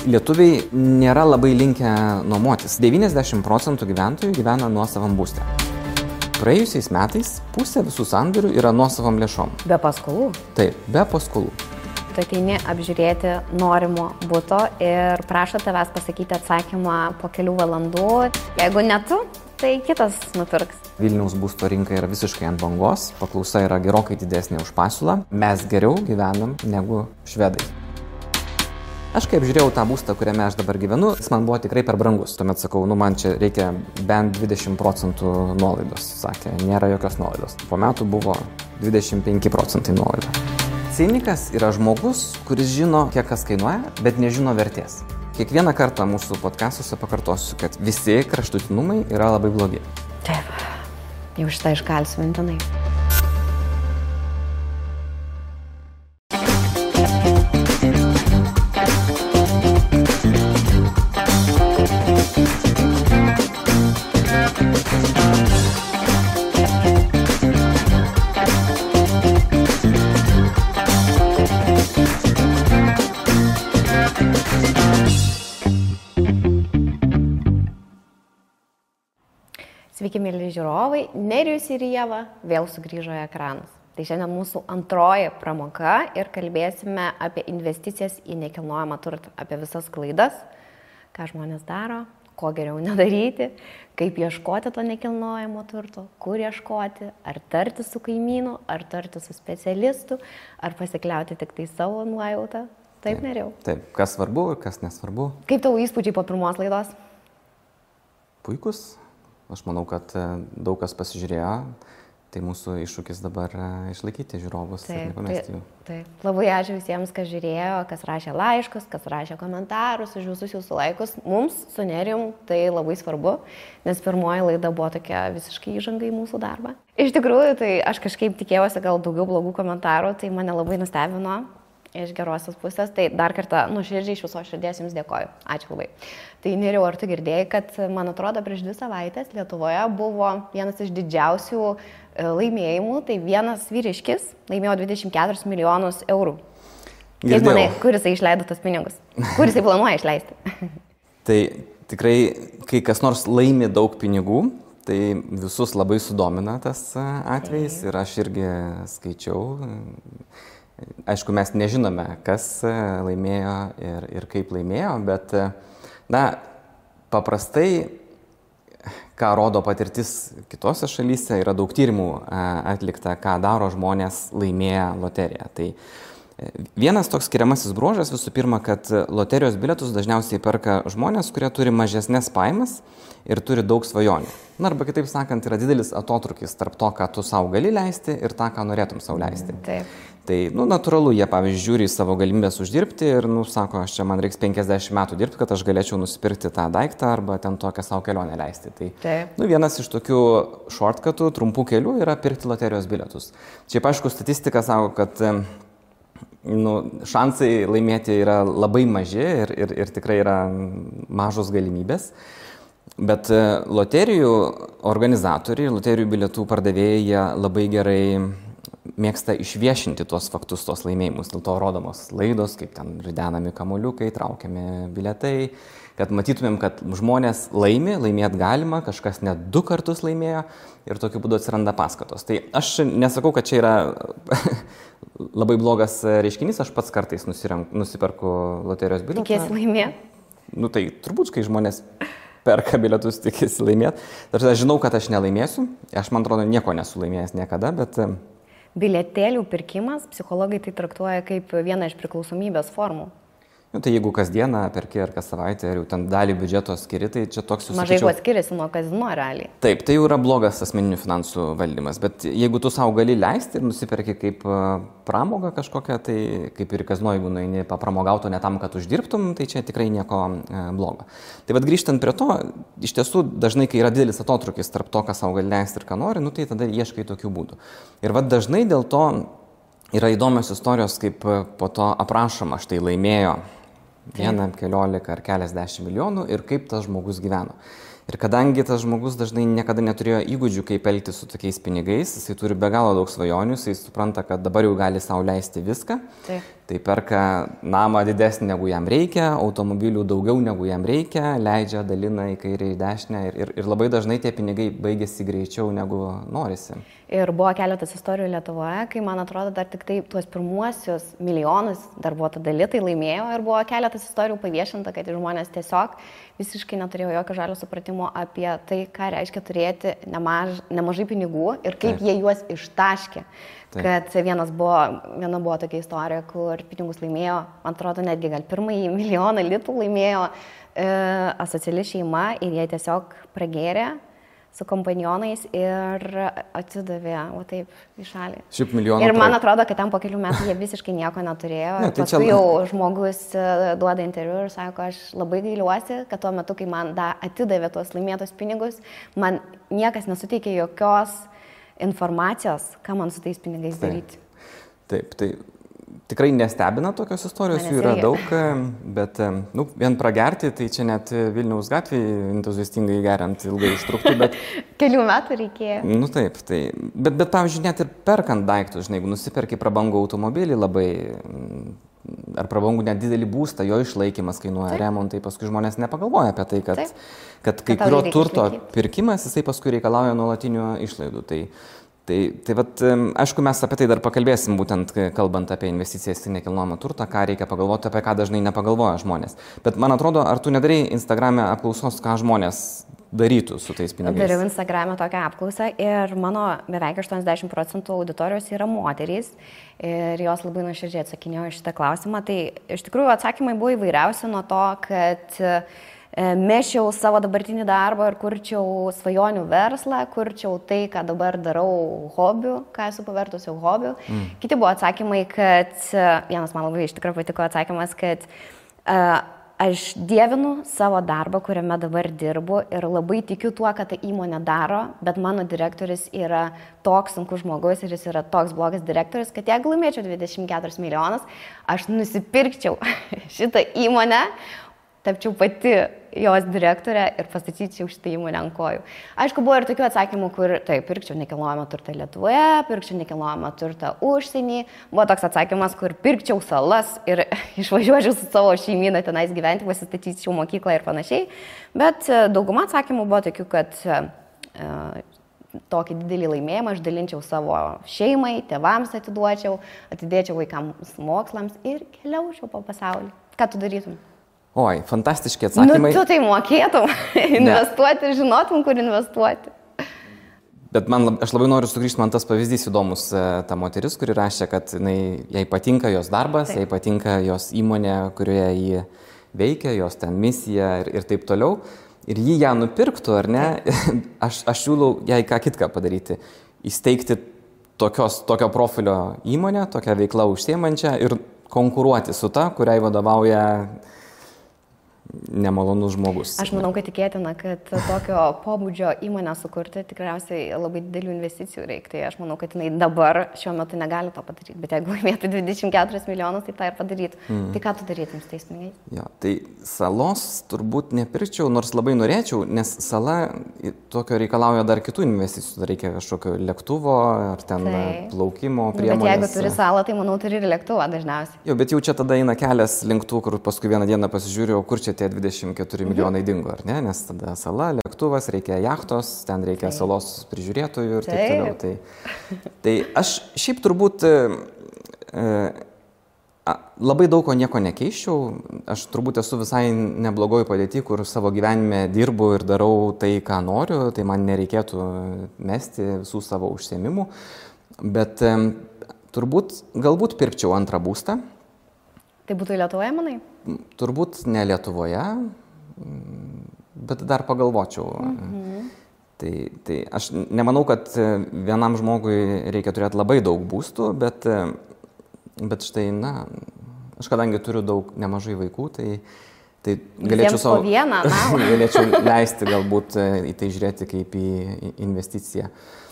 Lietuviai nėra labai linkę nuomotis. 90% gyventojų gyvena nuosavam būste. Praėjusiais metais pusė visų sandorių yra nuosavam lėšom. Be paskolų? Taip, be paskolų. Tu ateini apžiūrėti norimo buto ir prašo tavęs pasakyti atsakymą po kelių valandų. Jeigu ne tu, tai kitas nupirks. Vilniaus būsto rinka yra visiškai ant bangos, paklausa yra gerokai didesnė už pasiūlą. Mes geriau gyvenam negu švedai. Aš kai apžiūrėjau tą būstą, kuriame aš dabar gyvenu, jis man buvo tikrai per brangus. Tuomet sakau, man čia reikia bent 20% nuolaidos. Sakė, nėra jokios nuolaidos. Po metų buvo 25% nuolaida. Cinikas yra žmogus, kuris žino, kiek kas kainuoja, bet nežino vertės. Kiekvieną kartą mūsų podcastuose pakartosiu, kad visi kraštutinumai yra labai blogi. Taip, jau šitą iškalsiu mintinai. Sveiki, mėly žiūrovai, Nerijus ir Ieva vėl sugrįžo į ekranus. Tai šiandien mūsų antroji pramoga ir kalbėsime apie investicijas į nekilnojamą turtą, apie visas klaidas, ką žmonės daro, ko geriau nedaryti, kaip ieškoti to nekilnojamo turto, kur ieškoti, ar tarti su kaimynu, ar tarti su specialistu, ar pasikliauti tik tai savo nuojautą. Taip, Nerijau? Taip, kas svarbu ir kas nesvarbu. Kaip tavo įspūdžiai po pirmos laidos? Puikus. Aš manau, kad daug kas pasižiūrėjo, tai mūsų iššūkis dabar išlaikyti žiūrovus ir nepamesti jų. Taip. Labai ačiū visiems, kas žiūrėjo, kas rašė laiškus, kas rašė komentarus, už visus jūsų laikus. Mums su Nerijum tai labai svarbu, nes pirmoji laida buvo tokia visiškai įžanga į mūsų darbą. Iš tikrųjų, tai aš kažkaip tikėjausi gal daugiau blogų komentarų, tai mane labai nustebino. Iš gerosios pusės, tai dar kartą nuoširdžiai iš viso širdies jums dėkoju. Ačiū labai. Tai Nerijau, ar tu girdėjai, kad, man atrodo, prieš 2 savaitės Lietuvoje buvo vienas iš didžiausių laimėjimų, tai vienas vyriškis laimėjo 24 milijonus eurų. Kaip manai, kur jisai išleido tos pinigus? Kur jisai planuoja išleisti? Tai tikrai, kai kas nors laimi daug pinigų, tai visus labai sudomina tas atvejis ir aš irgi skaičiau. Aišku, mes nežinome, kas laimėjo ir kaip laimėjo, bet, paprastai, ką rodo patirtis kitose šalyse, yra daug tyrimų atlikta, ką daro žmonės laimėję loteriją. Tai vienas toks skiriamasis bruožas visų pirma, kad loterijos bilietus dažniausiai perka žmonės, kurie turi mažesnės pajamas ir turi daug svajonių. Arba kitaip sakant, yra didelis atotrukis tarp to, ką tu savo gali leisti ir tą, ką norėtum savo leisti. Taip. Tai, natūralu, jie, pavyzdžiui, žiūri į savo galimybės uždirbti ir, sako, čia man reiks 50 metų dirbti, kad aš galėčiau nusipirkti tą daiktą arba ten tokią savo kelionę leisti. Tai, vienas iš tokių shortcutų, trumpų kelių yra pirkti loterijos bilietus. Čia, aišku, statistika sako, kad šansai laimėti yra labai maži ir tikrai yra mažos galimybės. Bet loterijų organizatoriai, loterijų bilietų pardavėjai, jie labai gerai mėgsta išviešinti tuos faktus, tuos laimėjimus. Dėl to rodomos laidos, kaip ten ridenami kamuoliukai, traukiami bilietai, kad matytumėm, kad žmonės laimėt galima, kažkas net 2 kartus laimėjo ir tokiu būdu atsiranda paskatos. Tai aš nesakau, kad čia yra labai blogas reiškinys, aš pats kartais nusiperku loterijos bilietą. Tikėsi laimėt? Tai turbūt, kai žmonės perka bilietus, tikėsi laimėt. Aš žinau, kad aš nelaimėsiu, aš man atrodo nieko nesu laimėjęs niekada, bet... Bilietėlių pirkimas, psichologai tai traktuoja kaip vieną iš priklausomybės formų. Tai jeigu kasdieną perki ar kas savaitę ir jau ten dalį biudžeto skiri, tai čia toks jūs mažai kuo skiriasi nuo kazino realiai. Taip, tai jau yra blogas asmeninių finansų valdymas, bet jeigu tu savo gali leisti ir nusiperki kaip pramogą kažkokią, tai kaip ir kazino, jeigu nueini papramogauto ne tam, kad uždirbtum, tai čia tikrai nieko blogo. Tai vad grįžtant prie to, iš tiesų dažnai, kai yra didelis atotrukis tarp to, ką savo gali leisti ir ką nori, tai tada ieškai tokių būdų. Ir vad dažnai dėl to yra įdomios istorijos, kaip po to aprašoma, štai laimėjo 1, 15 ar keliasdešimt milijonų ir kaip tas žmogus gyveno. Ir kadangi tas žmogus dažnai niekada neturėjo įgūdžių, kaip elgtis su tokiais pinigais, jisai turi be galo daug svajonių, jisai supranta, kad dabar jau gali sau leisti viską. Taip. Tai perka namą didesnį negu jam reikia, automobilių daugiau negu jam reikia, leidžia, dalina į kairę, į dešinę ir labai dažnai tie pinigai baigėsi greičiau negu norisi. Ir buvo keletas istorijų Lietuvoje, kai, man atrodo, dar tik tai tuos pirmuosius milijonus darbuotojų dalytai laimėjo ir buvo keletas istorijų paviešinta, kad žmonės tiesiog visiškai neturėjo jokio žalio supratimo apie tai, ką reiškia turėti nemažai pinigų ir kaip jie juos ištaškė. Taip. Kad viena buvo tokia istorija, kur pinigus laimėjo, man atrodo, netgi gal pirmąjį milijoną litų laimėjo asociali šeima ir jie tiesiog pragėrė su kompanionais ir atsidavė, o taip, į šalį. Šiaip milijoną. Ir man atrodo, kad ten po kelių metų jie visiškai nieko neturėjo. Ne, tai paskui jau žmogus duoda interviu ir sako, aš labai gailiuosi, kad tuo metu, kai man atidavė tuos laimėtus pinigus, man niekas nesuteikė jokios informacijos, ką man su tais pinigais daryti. Taip, tai tikrai nestebina tokios istorijos, jų yra daug, bet vien pragerti, tai čia net Vilniaus gatvėje entuziastingai geriant ilgai užtruktų, bet... Kelių metų reikėjo. Taip, tai... Bet pavyzdžiui, net ir perkant daiktus, žinai, jeigu nusiperki prabangų automobilį labai, ar prabangų net didelį būstą, jo išlaikymas kainuoja remontai, paskui žmonės nepagalvoja apie tai, kad kai kurio turto pirkimas, jisai paskui reikalauja nuolatinių išlaidų. Tai vat, aišku, mes apie tai dar pakalbėsim, būtent kalbant apie investicijas į nekilnojamą turtą, ką reikia pagalvoti, apie ką dažnai nepagalvoja žmonės. Bet man atrodo, ar tu nedarai Instagrame apklausos, ką žmonės darytų su tais pinigais? Dariau Instagrame tokią apklausą ir mano beveik 80% auditorijos yra moterys ir jos labai nuoširdžiai atsakinėjo šitą klausimą. Tai iš tikrųjų atsakymai buvo įvairiausi nuo to, kad mešiau savo dabartinį darbą ir kurčiau svajonių verslą, kurčiau tai, ką dabar darau hobiu, ką esu pavertusi hobiu. Kiti buvo atsakymai, kad, vienas man labai iš tikrųjų patiko atsakymas, kad aš dievinu savo darbą, kuriame dabar dirbu ir labai tikiu tuo, kad ta įmonė daro, bet mano direktorius yra toks sunkus žmogus ir jis yra toks blogas direktorius, kad jeigu laimėčiau 24 milijonus, aš nusipirkčiau šitą įmonę, tapčiau pati jos direktorė ir pastatyčiau šitą įmonę ant kojų. Aišku, buvo ir tokių atsakymų, kur taip, pirkčiau nekilnojamą turtą Lietuvoje, pirkčiau nekilnojamą turtą užsienį. Buvo toks atsakymas, kur pirkčiau salas ir išvažiuočiau su savo šeimyną tenais gyventi, pasistatyčiau mokyklą ir panašiai. Bet dauguma atsakymų buvo tokių, kad tokį didelį laimėjimą aš dalinčiau savo šeimai, tėvams atiduočiau, atidėčiau vaikams mokslams ir keliaučiau po pasaulį. Ką tu darytum? Oi, fantastiški atsakymai. Tu tai mokėtum investuoti ir žinotum, kur investuoti. Bet aš labai noriu sugrįžti, man tas pavyzdys įdomus, ta moteris, kuri rašė, kad jai patinka jos darbas, jai patinka jos įmonė, kurioje ji veikia, jos ten misija ir taip toliau. Ir jį ją nupirktų, ar ne, aš siūlau jai ką kitką padaryti. Įsteigti tokio profilio įmonę, tokią veiklą užsiemančią ir konkuruoti su ta, kuriai vadovauja nemalonus žmogus. Aš manau, kad tikėtina, kad tokio pobūdžio įmonę sukurti tikriausiai labai didelių investicijų reikia. Tai aš manau, kad jinai dabar šiuo metu negali to padaryti. Bet jeigu laimėtų 24 milijonus, tai tą ir padarytų. Tai ką tu darytum su tais pinigais? Jo, tai salos turbūt nepirkčiau, nors labai norėčiau, nes sala tokio reikalauja dar kitų investicijų. Dar reikia kažkokio lėktuvo ar ten plaukimo priemonės. Bet jeigu turi salą, tai manau turi ir lėktuvą dažniausiai. Jo, bet jau čia tada eina kelias link tų, kur paskui vieną dieną pasižiūrėjau, kur čia tie 24 milijonai dingo, ar ne? Nes tada sala, lėktuvas, reikia jachtos, ten reikia salos prižiūrėtojų ir taip toliau. Tai aš šiaip turbūt labai daug ko nieko nekeiščiau. Aš turbūt esu visai neblogoj padėty, kur savo gyvenime dirbu ir darau tai, ką noriu, tai man nereikėtų mesti visų savo užsiėmimų. Bet galbūt pirkčiau antrą būstą. Tai būtų Lietuvoje, manai? Turbūt ne Lietuvoje, bet dar pagalvočiau. Tai aš nemanau, kad vienam žmogui reikia turėti labai daug būstų, bet štai, aš kadangi turiu nemažai vaikų, Tai galėčiau po vieną, galėčiau leisti galbūt į tai žiūrėti kaip į investiciją.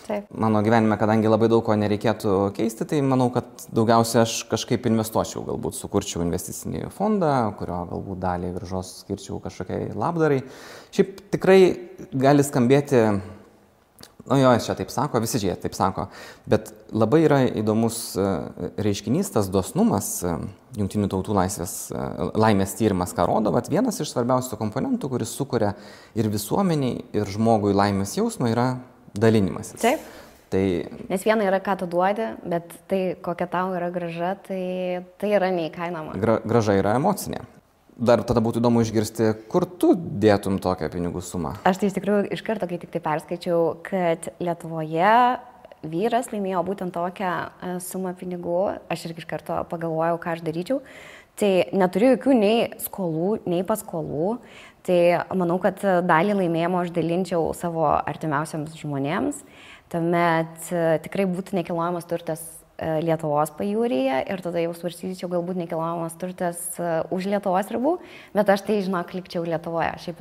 Taip. Mano gyvenime, kadangi labai daug ko nereikėtų keisti, tai manau, kad daugiausia aš kažkaip investuočiau, galbūt sukurčiau investicinį fondą, kurio galbūt dalį grąžos skirčiau kažkokiai labdarai. Šiaip tikrai gali skambėti, čia taip sako, visi jie taip sako, bet labai yra įdomus reiškinys, tas dosnumas, Jungtinių tautų laimės tyrimas, ką rodo, bet vienas iš svarbiausių komponentų, kuris sukuria ir visuomeniai, ir žmogui laimės jausmą, yra dalinimasis. Taip. Tai, nes viena yra, ką tu duodi, bet tai, kokia tau yra grąža, tai yra neįkainoma. Grąža yra emocinė. Dar tada būtų įdomu išgirsti, kur tu dėtum tokią pinigų sumą. Aš tai iš tikrųjų iš karto, kai tik tai perskaičiau, kad Lietuvoje vyras laimėjo būtent tokią sumą pinigų, aš irgi iš karto pagalvojau, ką aš daryčiau. Tai neturiu jokių nei skolų, nei paskolų. Tai manau, kad dalį laimėjimo aš dalinčiau savo artimiausiams žmonėms. Tuomet tikrai būtų nekilnojamas turtas Lietuvos pajūryje ir tada jau svarstyčiau galbūt nekilnojamas turtas už Lietuvos ribų, bet aš tai, žinok, likčiau Lietuvoje. Šiaip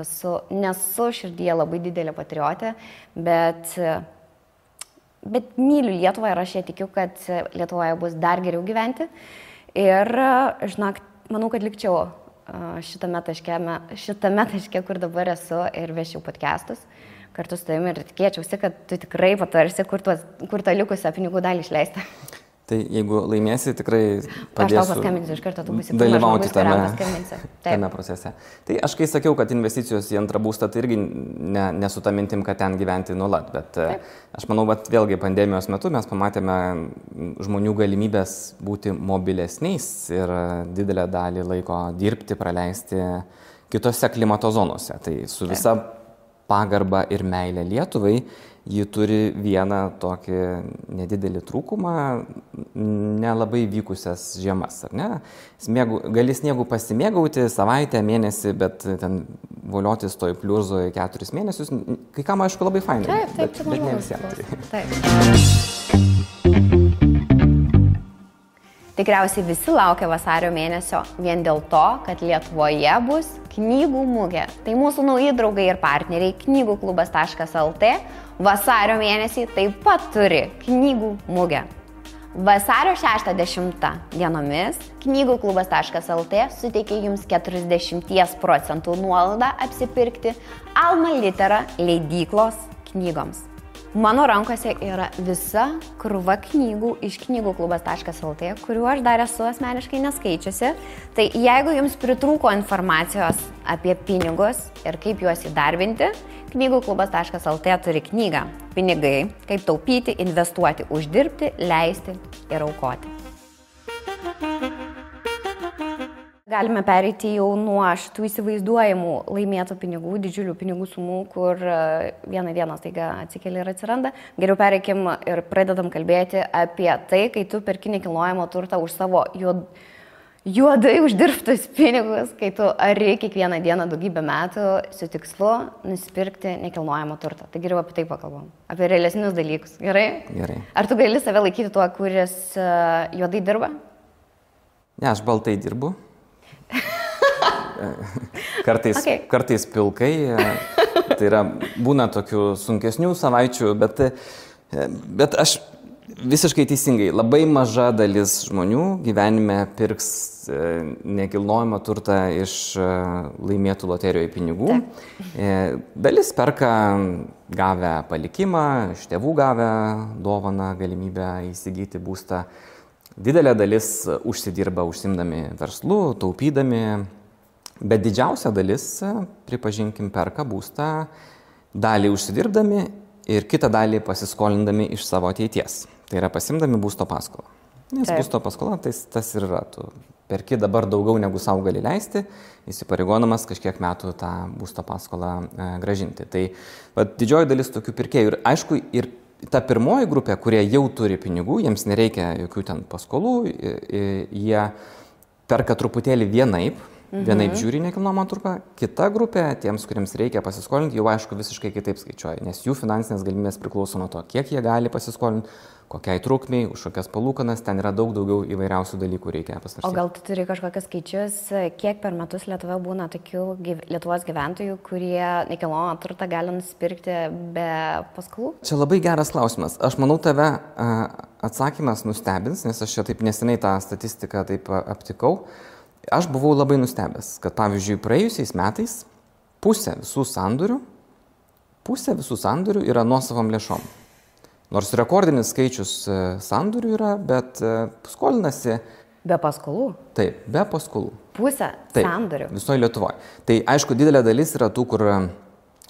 nesu širdyje labai didelė patriotė, bet myliu Lietuvą ir aš ją tikiu, kad Lietuvoje bus dar geriau gyventi. Ir, žinok, manau, kad likčiau šitame taške, kur dabar esu ir vešiau podcastus kartu su tavimi ir tikėčiausi, kad tu tikrai patarsi, kur tą likusią pinigų dalį išleisti. Tai jeigu laimėsi, tikrai padėsiu. Aš tau paskambinsiu iš karto, tu būsi dalyvauti tame procese. Tai aš kai sakiau, kad investicijos į antrą būstą, tai irgi ne su ta mintim, kad ten gyventi nuolat, bet aš manau, kad vėlgi pandemijos metu mes pamatėme žmonių galimybės būti mobilesniais ir didelę dalį laiko dirbti, praleisti kitose klimato zonose. Tai su visa pagarba ir meilė Lietuvai, ji turi vieną tokį nedidelį trūkumą, nelabai vykusias žiemas, ar ne? Gali sniegu pasimėgauti savaitę, mėnesį, bet ten voliotis toj pliurzoj 4 mėnesius, kai kam aišku labai fainai, bet ne visiems. Tikriausiai visi laukia vasario mėnesio vien dėl to, kad Lietuvoje bus knygų mugė. Tai mūsų nauji draugai ir partneriai knygų-klubas.lt vasario mėnesį taip pat turi knygų mugę. Vasario 6-10 dienomis knygų-klubas.lt suteikia jums 40% nuolaidą apsipirkti Alma Litera leidyklos knygoms. Mano rankose yra visa krūva knygų iš knygų-klubas.lt, kuriuo aš dar esu asmeniškai neskaičiusi. Tai jeigu jums pritrūko informacijos apie pinigus ir kaip juos įdarbinti, knygų-klubas.lt turi knygą Pinigai, kaip taupyti, investuoti, uždirbti, leisti ir aukoti. Galime pereiti jau nuo šitų įsivaizduojamų laimėtų pinigų, didžiulių pinigų sumų, kur vieną dieną staiga atsikeli ir atsiranda. Geriau pereikim ir pradedam kalbėti apie tai, kai tu perki nekilnojamo turtą už savo juodai uždirbtus pinigus, kai tu ari kiekvieną dieną daugybę metų su tikslu nusipirkti nekilnojamo turtą. Tai geriau apie tai pakalbam. Apie realesnius dalykus. Gerai? Gerai. Ar tu gali save laikyti tuo, kuris juodai dirba? Ne, aš baltai dirbu. Kartais pilkai, tai yra, būna tokių sunkesnių savaičių, bet aš visiškai teisingai, labai maža dalis žmonių gyvenime pirks nekilnojamą turtą iš laimėtų loterijoje pinigų. Dalis perka gavę palikimą, iš tėvų gavę dovaną, galimybę įsigyti būstą. Didelė dalis užsidirba užsimdami verslu, taupydami, bet didžiausia dalis, pripažinkim, perka būstą, dalį užsidirbdami ir kitą dalį pasiskolindami iš savo ateities. Tai yra pasimdami būsto paskolą. Nes būsto paskola tas ir yra. Tu perki dabar daugiau negu savo gali leisti, įsipareigodamas kažkiek metų tą būsto paskolą grąžinti. Tai didžioji dalis tokių pirkėjų ir aišku ir ta pirmoji grupė, kurie jau turi pinigų, jiems nereikia jokių ten paskolų, jie perka truputėlį vienaip, vienaip žiūri nekilnojamą turtą, kita grupė, tiems, kuriems reikia pasiskolinti, jau aišku visiškai kitaip skaičiuoja, nes jų finansinės galimybės priklauso nuo to, kiek jie gali pasiskolinti, kokiai trukmiai, už kokias palūkanas, ten yra daug daugiau įvairiausių dalykų reikia pasvarstyti. O gal tu turi kažkokius skaičius, kiek per metus Lietuvoje būna tokių Lietuvos gyventojų, kurie nekilnojamą turtą gali nusipirkti be paskolų? Čia labai geras klausimas. Aš manau, tave atsakymas nustebins, nes aš čia taip neseniai tą statistiką taip aptikau. Aš buvau labai nustebęs, kad pavyzdžiui praėjusiais metais pusė visų sandorių yra nuosavom lėšom. Nors rekordinis skaičius sandorių yra, bet skolinasi... Be paskolų? Taip, be paskolų. Pusė sandorių? Visoje Lietuvoje. Tai aišku, didelė dalis yra tų, kur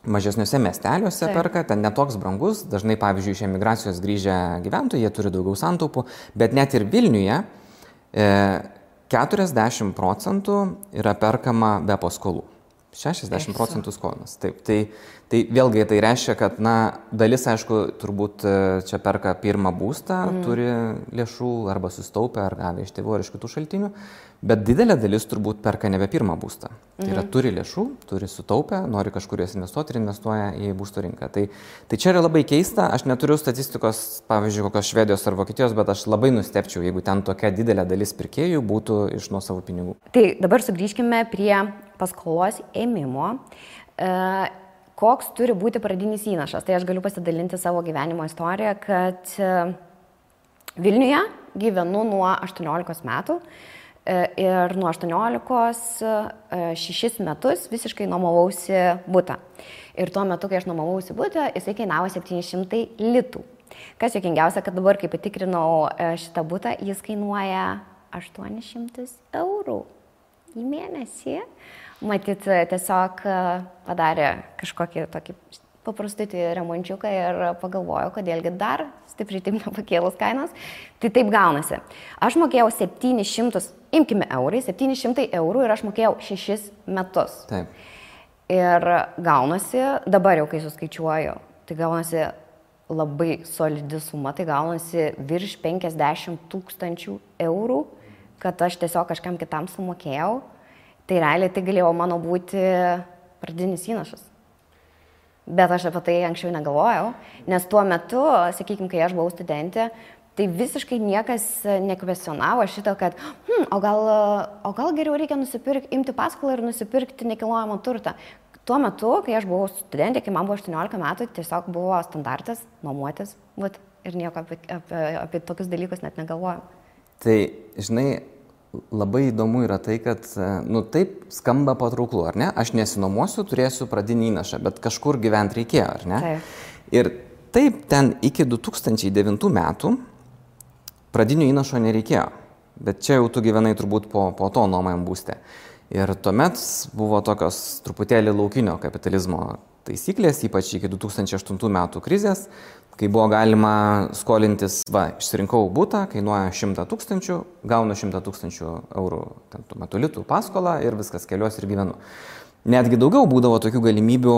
mažesniuose miesteliuose perka, ten netoks brangus, dažnai pavyzdžiui iš emigracijos grįžę gyventojai, jie turi daugiau santaupų, bet net ir Vilniuje 40% yra perkama be paskolų. 60% skolinas. Taip, tai vėlgi tai reiškia, kad dalis, aišku, turbūt čia perka pirmą būstą, turi lėšų arba sustaupę, ar gavę iš tėvų ar iš kitų šaltinių, bet didelė dalis turbūt perka nebe pirmą būstą. Tai yra turi lėšų, turi sutaupę, nori kažkur jas investuoti ir investuoja į būsto rinką. Tai čia yra labai keista, aš neturiu statistikos, pavyzdžiui, kokios Švedijos ar Vokietijos, bet aš labai nustebčiau, jeigu ten tokia didelė dalis pirkėjų būtų iš nuosavų pinigų. Tai dabar sugrįžkime prie paskolos ėmimo. Koks turi būti pradinis įnašas? Tai aš galiu pasidalinti savo gyvenimo istoriją, kad Vilniuje gyvenu nuo 18 metų ir nuo 18 6 metus visiškai nuomavausi butą. Ir tuo metu, kai aš nuomavausi butą, jisai kainavo 700 litų. Kas juokingiausia, kad dabar, kai patikrinau šitą butą, jis kainuoja 800 eurų į mėnesį. Matyt, tiesiog padarė kažkokį tokį paprastutį remončiuką ir pagalvojo, kodėlgi dar stipriai taip nepakėlus kainos. Tai taip gaunasi. Aš mokėjau 700, imkime eurai, 700 eurų ir aš mokėjau 6 metus. Taip. Ir gaunasi, dabar jau kai suskaičiuoju, tai gaunasi labai solidi suma, tai gaunasi virš 50 000 eurų, kad aš tiesiog kažkam kitam sumokėjau. Tai realiai tai galėjo mano būti pradinis įnašas. Bet aš apie tai anksčiau negalvojau, nes tuo metu, sakykime, kai aš buvau studentė, tai visiškai niekas nekvestionavo šito, kad o gal geriau reikia imti paskolą ir nusipirkti nekilnojamą turtą. Tuo metu, kai aš buvau studentė, kai man buvo 18 metų, tiesiog buvo standartas nuomotis ir nieko apie tokius dalykus net negalvojau. Tai, žinai, labai įdomu yra tai, kad, taip skamba patrauklu, ar ne? Aš nesinuomosiu, turėsiu pradinį įnašą, bet kažkur gyventi reikėjo, ar ne? Taip. Ir taip ten iki 2009 metų pradinio įnašo nereikėjo, bet čia jau tu gyvenai turbūt po to nuomojam būste. Ir tuomet buvo tokios truputėlį laukinio kapitalizmo taisyklės, ypač iki 2008 metų krizės, kai buvo galima skolintis, išsirinkau butą, kainuoja 100 000, gaunu 100 000 eurų tuo metu litų paskolą ir viskas, keliuosi ir gyvenu. Netgi daugiau būdavo tokių galimybių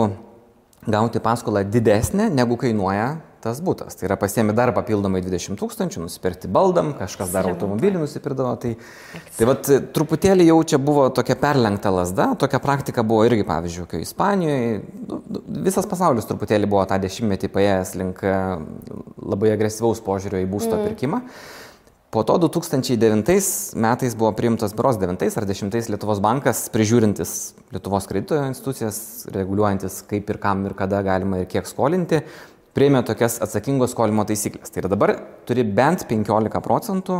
gauti paskolą didesnę, negu kainuoja tas butas. Tai yra pasiemi dar papildomai 20 000, nusipirkti baldam, kažkas dar automobilį nusipirkdavo. Tai truputėlį jau čia buvo tokia perlenkta lazda, tokia praktika buvo irgi, pavyzdžiui, kai Ispanijoje, visas pasaulis truputėlį buvo tą dešimtmetį paėjęs link labai agresyvaus požiūrio į būsto pirkimą. Po to 2009 metais buvo priimtas berods 9 ar 10 Lietuvos bankas, prižiūrintis Lietuvos kredito institucijas, reguliuojantis kaip ir kam ir kada galima ir kiek skolinti, priėmė tokias atsakingos skolimo taisyklės. Tai yra dabar turi bent 15%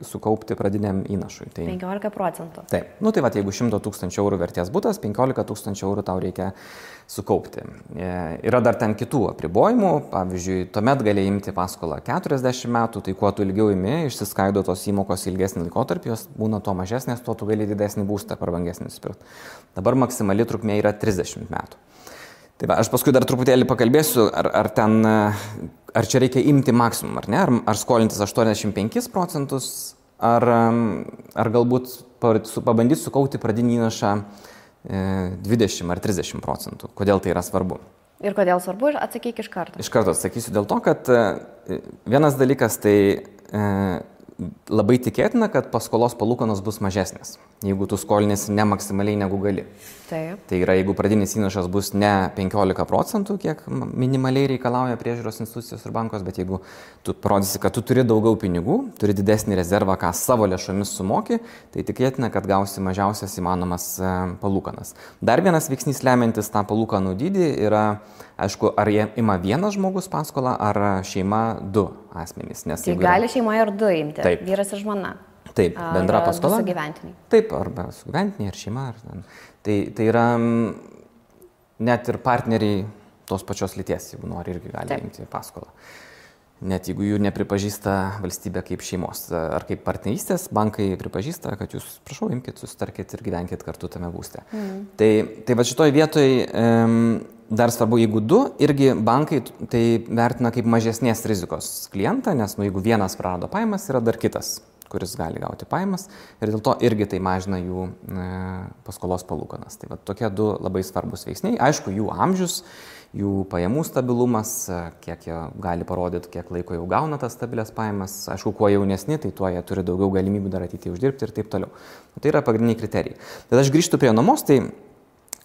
sukaupti pradiniam įnašui. 15%? Taip. Tai jeigu 100 000 eurų vertės butas, 15 000 eurų tau reikia sukaupti. Yra dar ten kitų apribojimų, pavyzdžiui, tuomet gali imti paskolą 40 metų, tai kuo tu ilgiau imi, išsiskaido tos įmokos ilgesnį laikotarpį, jos būna to mažesnės, tuo tu gali didesnį būstą per vangesnį nusipirkti. Dabar maksimali trukmė yra 30 metų. Tai aš paskui dar truputėlį pakalbėsiu, ar čia reikia imti maksimum, ar ne, ar skolintis 85%, ar galbūt pabandyti sukaupti pradinį įnašą 20 ar 30%. Kodėl tai yra svarbu? Ir kodėl svarbu, atsakyk iš karto. Iš karto atsakysiu dėl to, kad vienas dalykas tai labai tikėtina, kad paskolos palūkanos bus mažesnės, jeigu tu skolinėsi ne maksimaliai negu gali. Taip. Tai yra, jeigu pradinis įnašas bus ne 15%, kiek minimaliai reikalauja priežiūros institucijos ir bankos, bet jeigu tu parodysi, kad tu turi daugiau pinigų, turi didesnį rezervą, ką savo lėšomis sumoki, tai tikėtina, kad gausi mažiausias įmanomas palūkanas. Dar vienas veiksnys lemiantis tą palūkanų dydį yra, aišku, ar jie ima vienas žmogus paskolą, ar šeima du asmenys. Tai gali šeimoje ir du imti, taip. Vyras ir žmona. Taip, bendra paskola. Sugyventiniai. Taip, arba sugyventiniai, ar šeima. Tai yra net ir partneriai tos pačios lyties, jeigu nori, irgi gali imti paskolą. Net jeigu jų nepripažįsta valstybė kaip šeimos ar kaip partnerystės, bankai pripažįsta, kad jūs, prašau, imkite, susitarkite ir gyvenkite kartu tame būste. Tai va šitoj vietoj dar svarbu, jeigu du, irgi bankai tai vertina kaip mažesnės rizikos klientą, nes jeigu vienas prarado pajamas, yra dar kitas, kuris gali gauti pajamas ir dėl to irgi tai mažina jų paskolos palūkanas. Tai va tokie du labai svarbus veiksniai. Aišku, jų amžius, jų pajamų stabilumas, kiek jie gali parodyti, kiek laiko jau gauna tas stabilias pajamas. Aišku, kuo jaunesni, tai tuo jie turi daugiau galimybių dar ateityje uždirbti ir taip toliau. Tai yra pagrindiniai kriterijai. Bet aš grįžtu prie nuomos, tai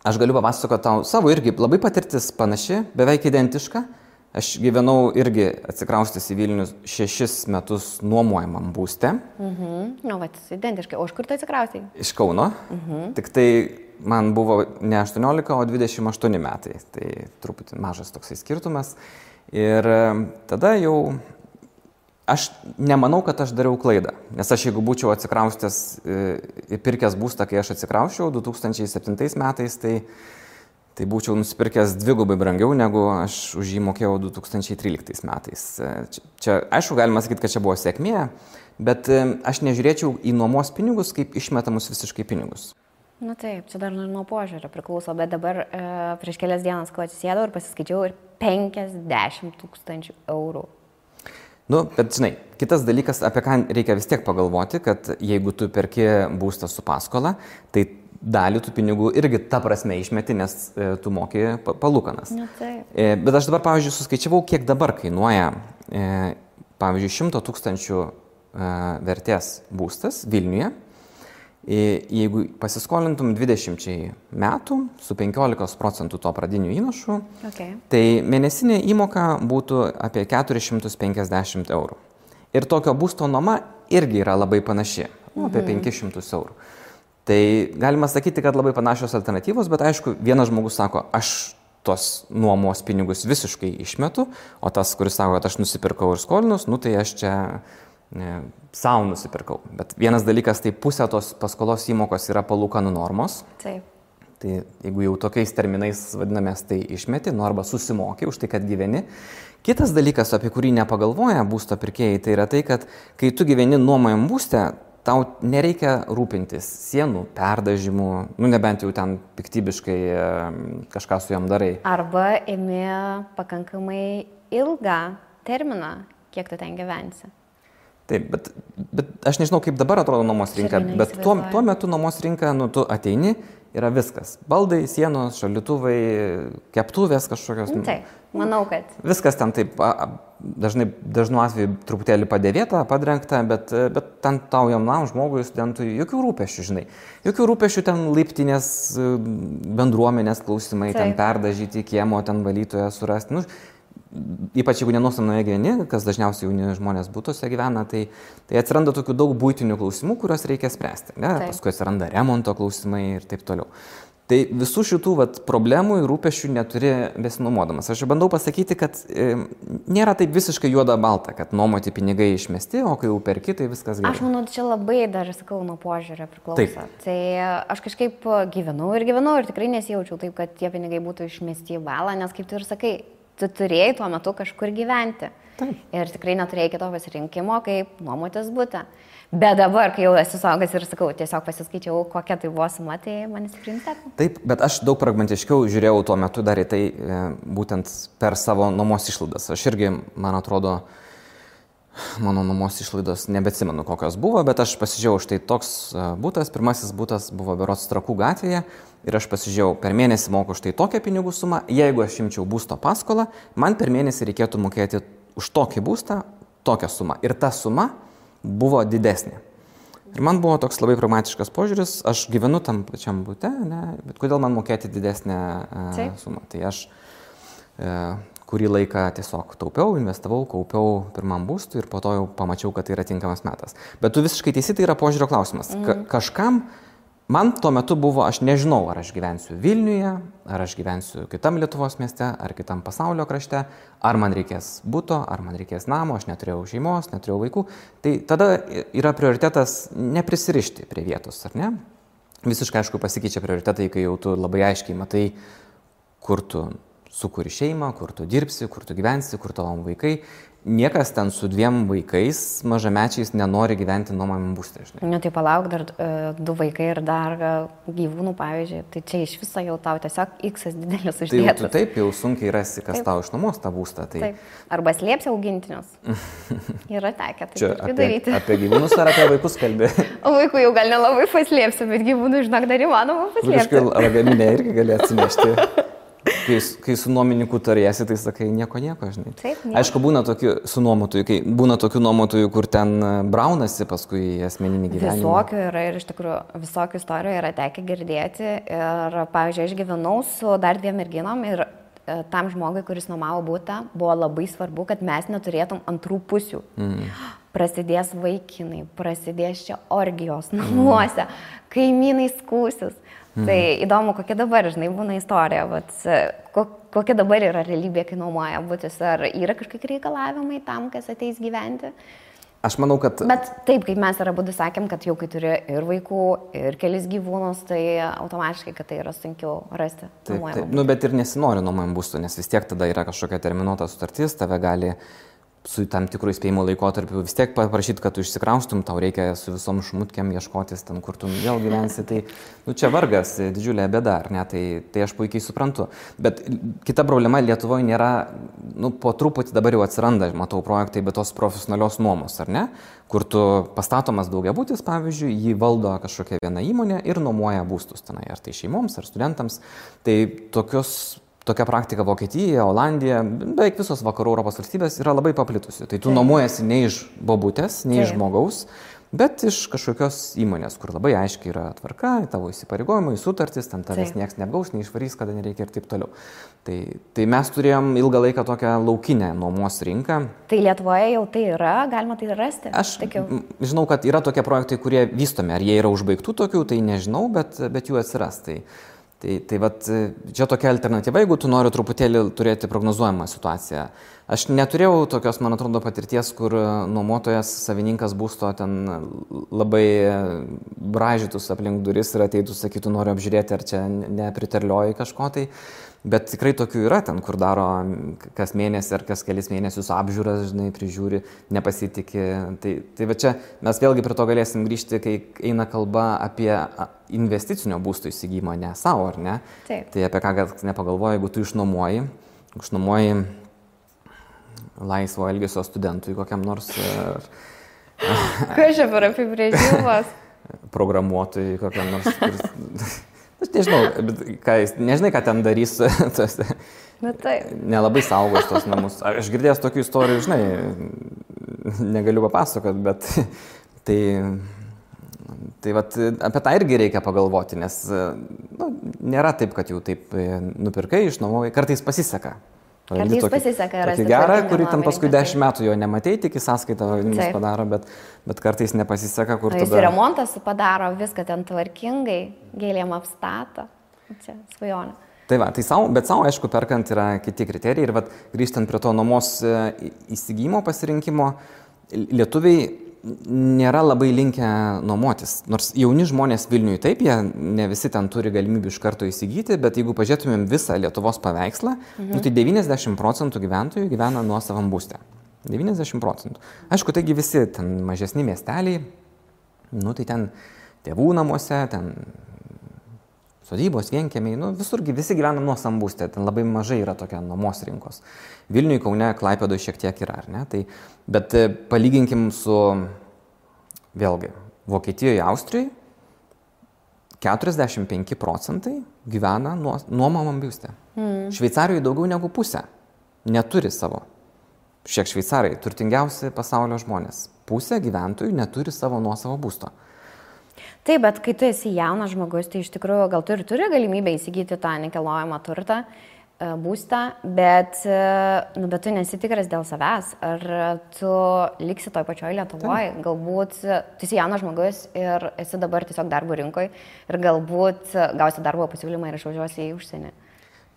aš galiu papasakoti tau savo irgi labai patirtis panaši, beveik identiška. Aš gyvenau irgi atsikraustęs į Vilnių 6 metus nuomojamam būste. Nu, vat, identiškai. O iš kur tu atsikraustei? Iš Kauno. Tik tai man buvo ne 18, o 28 metai. Tai truputį mažas toksai skirtumas. Ir tada jau aš nemanau, kad aš dariau klaidą. Nes aš jeigu būčiau atsikraustęs ir pirkęs būstą, kai aš atsikrausčiau 2007 metais, tai būčiau nusipirkęs dvigubai brangiau, negu aš už jį mokėjau 2013 metais. Čia, aišku, galima sakyti, kad čia buvo sėkmė, bet aš nežiūrėčiau į nuomos pinigus kaip išmetamus visiškai pinigus. Na taip, čia dar nuo požiūrio priklauso, bet dabar prieš kelias dienas, kai atsisėdau ir pasiskaičiau, ir 50 000 eurų. Nu, bet žinai, kitas dalykas, apie ką reikia vis tiek pagalvoti, kad jeigu tu perki būstą su paskola, tai dalį tų pinigų irgi ta prasme išmeti, nes tu moki palūkanas. Bet aš dabar, pavyzdžiui, suskaičiavau, kiek dabar kainuoja, pavyzdžiui, 100 000 vertės būstas Vilniuje. Jeigu pasiskolintum 20 metų su 15% to pradinių įnašų, tai mėnesinė įmoka būtų apie 450 eurų. Ir tokio būsto nuoma irgi yra labai panaši, apie 500 eurų. Tai galima sakyti, kad labai panašios alternatyvos, bet aišku, vienas žmogus sako, aš tos nuomos pinigus visiškai išmetu, o tas, kuris sako, kad aš nusipirkau ir skolinus, tai aš čia savo nusipirkau. Bet vienas dalykas, tai pusė tos paskolos įmokos yra palūkanų normos. Taip. Tai jeigu jau tokiais terminais vadinamės, tai išmeti, arba susimoki už tai, kad gyveni. Kitas dalykas, apie kurį nepagalvoja būsto pirkėjai, tai yra tai, kad kai tu gyveni nuomojam būste, tau nereikia rūpintis sienų perdažymų, nebent jau ten piktybiškai kažką su jom darai. Arba imi pakankamai ilgą terminą, kiek tu ten gyvensi. Taip, bet aš nežinau, kaip dabar atrodo nuomos rinka, bet tuo metu nuomos rinka, tu ateini, yra viskas. Baldai, sienos, šaldytuvai, keptuvės kažkokios. Taip, manau, kad. Viskas ten taip, dažnu atveju truputėlį padėvėta, padrengta, bet ten tau jaunam žmogui, studentui, jokių rūpesčių, žinai. Jokių rūpesčių ten laiptinės bendruomenės klausimai, ten perdažyti kiemo, ten valytoją surasti. Ypač jeigu nenuostamnoje gyveni, kas dažniausiai jauni žmonės būtuose gyvena, tai atsiranda tokių daug buitinių klausimų, kuriuos reikia spręsti. Paskui atsiranda remonto klausimai ir taip toliau. Tai visų šitų problemų ir rūpesčių neturi besinuomodamas. Aš bandau pasakyti, kad nėra taip visiškai juoda balta, kad nuomoti pinigai išmesti, o kai jau perki, tai viskas gerai. Aš manau, čia labai dar, sakau, nuo požiūrio priklauso. Taip. Tai aš kažkaip gyvenau ir tikrai nesijaučiau taip, kad tie pinigai būtų išmesti į balą, nes kaip tu ir sakai, tu turėjai tuo metu kažkur gyventi. Taip. Ir tikrai neturėjai kito pasirinkimo, kaip nuomotis butą. Bet dabar, kai jau esu suaugęs ir sakau, tiesiog pasiskaičiau, kokia tai buvo suma, tai man įsiprimstėtų. Taip, bet aš daug pragmatiškiau žiūrėjau tuo metu dar į tai būtent per savo nuomos išlaidas. Aš irgi, man atrodo, mano nuomos išlaidos nebeatsimenu, kokios buvo, bet aš pasižiūrėjau, štai toks butas, pirmasis butas buvo berods Trakų gatvėje ir aš pasižiūrėjau, per mėnesį moku štai tokią pinigų sumą, jeigu aš imčiau būsto paskolą, man per mėnesį reikėtų mokėti už tokį būstą tokią sumą. Ir ta suma buvo didesnė. Ir man buvo toks labai pragmatiškas požiūris, aš gyvenu tam pačiam bute, ne, bet kodėl man mokėti didesnę sumą. Tai aš kurį laiką tiesiog taupiau, investavau, kaupiau pirmam būstui ir po to jau pamačiau, kad tai yra tinkamas metas. Bet tu visiškai teisi, tai yra požiūrio klausimas. Kažkam, man tuo metu buvo, aš nežinau, ar aš gyvensiu Vilniuje, ar aš gyvensiu kitam Lietuvos mieste, ar kitam pasaulio krašte, ar man reikės buto, ar man reikės namo, aš neturėjau šeimos, neturėjau vaikų. Tai tada yra prioritetas neprisirišti prie vietos, ar ne? Visiškai aišku pasikeičia prioritetai, kai jau tu labai aiškiai matai, kur tu sukuri šeimą, kur tu dirbsi, kur tu gyvensi, kur tavo vaikai. Niekas ten su 2 vaikais mažamečiais nenori gyventi nuomojamam būste, žinai. Ne, tai palauk, dar 2 vaikai ir dar gyvūnų, pavyzdžiui, tai čia iš viso jau tau tiesiog X didelis uždėtas. Tai tu taip jau sunkiai rasi, kas tau išnuomos tą būstą. Tai... Taip. Arba slėpsi augintinius. Yra tekę tai daryti. Apie gyvūnus ar apie vaikus kalbė? O vaikų jau gal nelabai paslėpsiu, bet gyvūnų, žinok, dar įmanoma paslėpti. Kažkai lagaminę irgi gali atsinešti. Kai su nuomininku tariesi, tai sakai nieko, žinai. Taip, aišku, būna tokių su nuomotojų, kai būna tokių nuomotojų, kur ten braunasi paskui asmeninį gyvenimą. Visokių yra ir iš tikrųjų visokių istorijų yra tekę girdėti. Ir, pavyzdžiui, aš gyvenau su dar 2 merginom ir tam žmogui, kuris nuomavo butą, buvo labai svarbu, kad mes neturėtum antrų pusių. Prasidės vaikinai, prasidės čia orgijos namuose, kaimynai skūsis. Tai įdomu, kokia dabar, žinai, būna istorija, kokia dabar yra realybė, kai nuomoja butus, ar yra kažkokie reikalavimai tam, kas ateis gyventi? Aš manau, kad... Bet taip, kaip mes ir abudu sakėm, kad jau kai turi ir vaikų, ir kelis gyvūnus, tai automatiškai, kad tai yra sunkiau rasti nuomojamą būstą. Bet ir nesinori nuomojamą būstą, nes vis tiek tada yra kažkokia terminuota sutartis, tave gali su tam tikrų įspėjimo laikotarpiu vis tiek paprašyti, kad tu išsikraustum, tau reikia su visom šmutkiam ieškotis ten, kur tu vėl gyvensi, tai čia vargas, didžiulė bėda, ar ne, tai aš puikiai suprantu. Bet kita problema Lietuvoje nėra, po truputį dabar jau atsiranda, matau projektai, bet tos profesionalios nuomos, ar ne, kur tu pastatomas daugiabutis, pavyzdžiui, jį valdo kažkokia viena įmonė ir nuomoja būstus tenai, ar tai šeimoms, ar studentams, tai tokia praktika Vokietija, Olandija, beveik visos vakarų Europos valstybės yra labai paplitusi. Tai tu nuomojasi ne iš bobutės, ne iš žmogaus, bet iš kažkokios įmonės, kur labai aiškiai yra tvarka, tavo įsipareigojimai, sutartis, ten tavęs nieks neapgaus, neišvarys, kada nereikia ir taip toliau. Tai mes turėjom ilgą laiką tokią laukinę nuomos rinką. Tai Lietuvoje jau tai yra, galima tai rasti? Aš žinau, kad yra tokie projektai, kurie vystomi, ar jie yra užbaigtų tokių, tai nežinau, bet jų atsiras. Tai vat, čia tokia alternatyva, jeigu tu nori truputėlį turėti prognozuojamą situaciją. Aš neturėjau tokios, man atrodo, patirties, kur nuomotojas, savininkas būsto ten labai bražytus aplink duris ir ateitų, sakytų, noriu apžiūrėti, ar čia nepriterlioji kažko tai. Bet tikrai tokių yra ten, kur daro kas mėnesį ar kas kelis mėnesius apžiūras, žinai, prižiūri, nepasitikė. Tai va čia mes vėlgi prie to galėsim grįžti, kai eina kalba apie investicinio būsto įsigijimą, ne savo, ar ne? Taip. Tai apie ką nepagalvoji, jeigu tu išnuomoji laisvo elgesio studentui kokiam nors... Kas čia per apibrėžimas? Programuotojui kokiam nors... Aš nežinau, nežinai, ką ten darys, nelabai saugos tos namus. Aš girdėjęs tokių istorijų, žinai, negaliu papasakot, bet tai vat, apie tą irgi reikia pagalvoti, nes nėra taip, kad jau taip nupirkai, išnuomojai, kartais pasiseka. Kartais pasiseka rasti gerą, kurį ten paskui 10 metų jo nematei, tik į sąskaitą padaro, bet kartais nepasiseka, kur tada... Jis remontas padaro viską ten tvarkingai, gėlėm apstato. Čia svajonė. Tai va, bet savo, aišku, perkant yra kiti kriterijai ir grįžtant prie to nuomos įsigijimo pasirinkimo, lietuviai nėra labai linkę nuomotis. Nors jauni žmonės Vilniuje taip, jie ne visi ten turi galimybių iš karto įsigyti, bet jeigu pažiūrėtumėm visą Lietuvos paveikslą, tai 90% gyventojų gyvena nuosavam būste. 90%. Aišku, taigi visi ten mažesni miesteliai, tai ten tėvų namuose, ten sodybos, vienkiemiai, visurgi visi gyvena nuosavam būste, ten labai mažai yra tokia nuomos rinkos. Vilniuje, Kaune, Klaipėdoje šiek tiek yra, ar ne? Bet palyginkim su, vėlgi, Vokietijoje, Austrijoje, 45% gyvena nuomojamam būste. Šveicarijoje daugiau negu pusė neturi savo. Šiek šveicarai, turtingiausi pasaulio žmonės. pusė gyventojų neturi savo nuosavo būsto. Taip, bet kai tu esi jaunas žmogus, tai iš tikrųjų gal tu ir turi galimybę įsigyti tą nekilnojamą turtą, būstą, bet tu nesitikras dėl savęs, ar tu liksi toj pačioj Lietuvoje, galbūt tu esi jaunas žmogus ir esi dabar tiesiog darbo rinkoje ir galbūt gausi darbo pasiūlymą ir išvažiuosi į užsienį.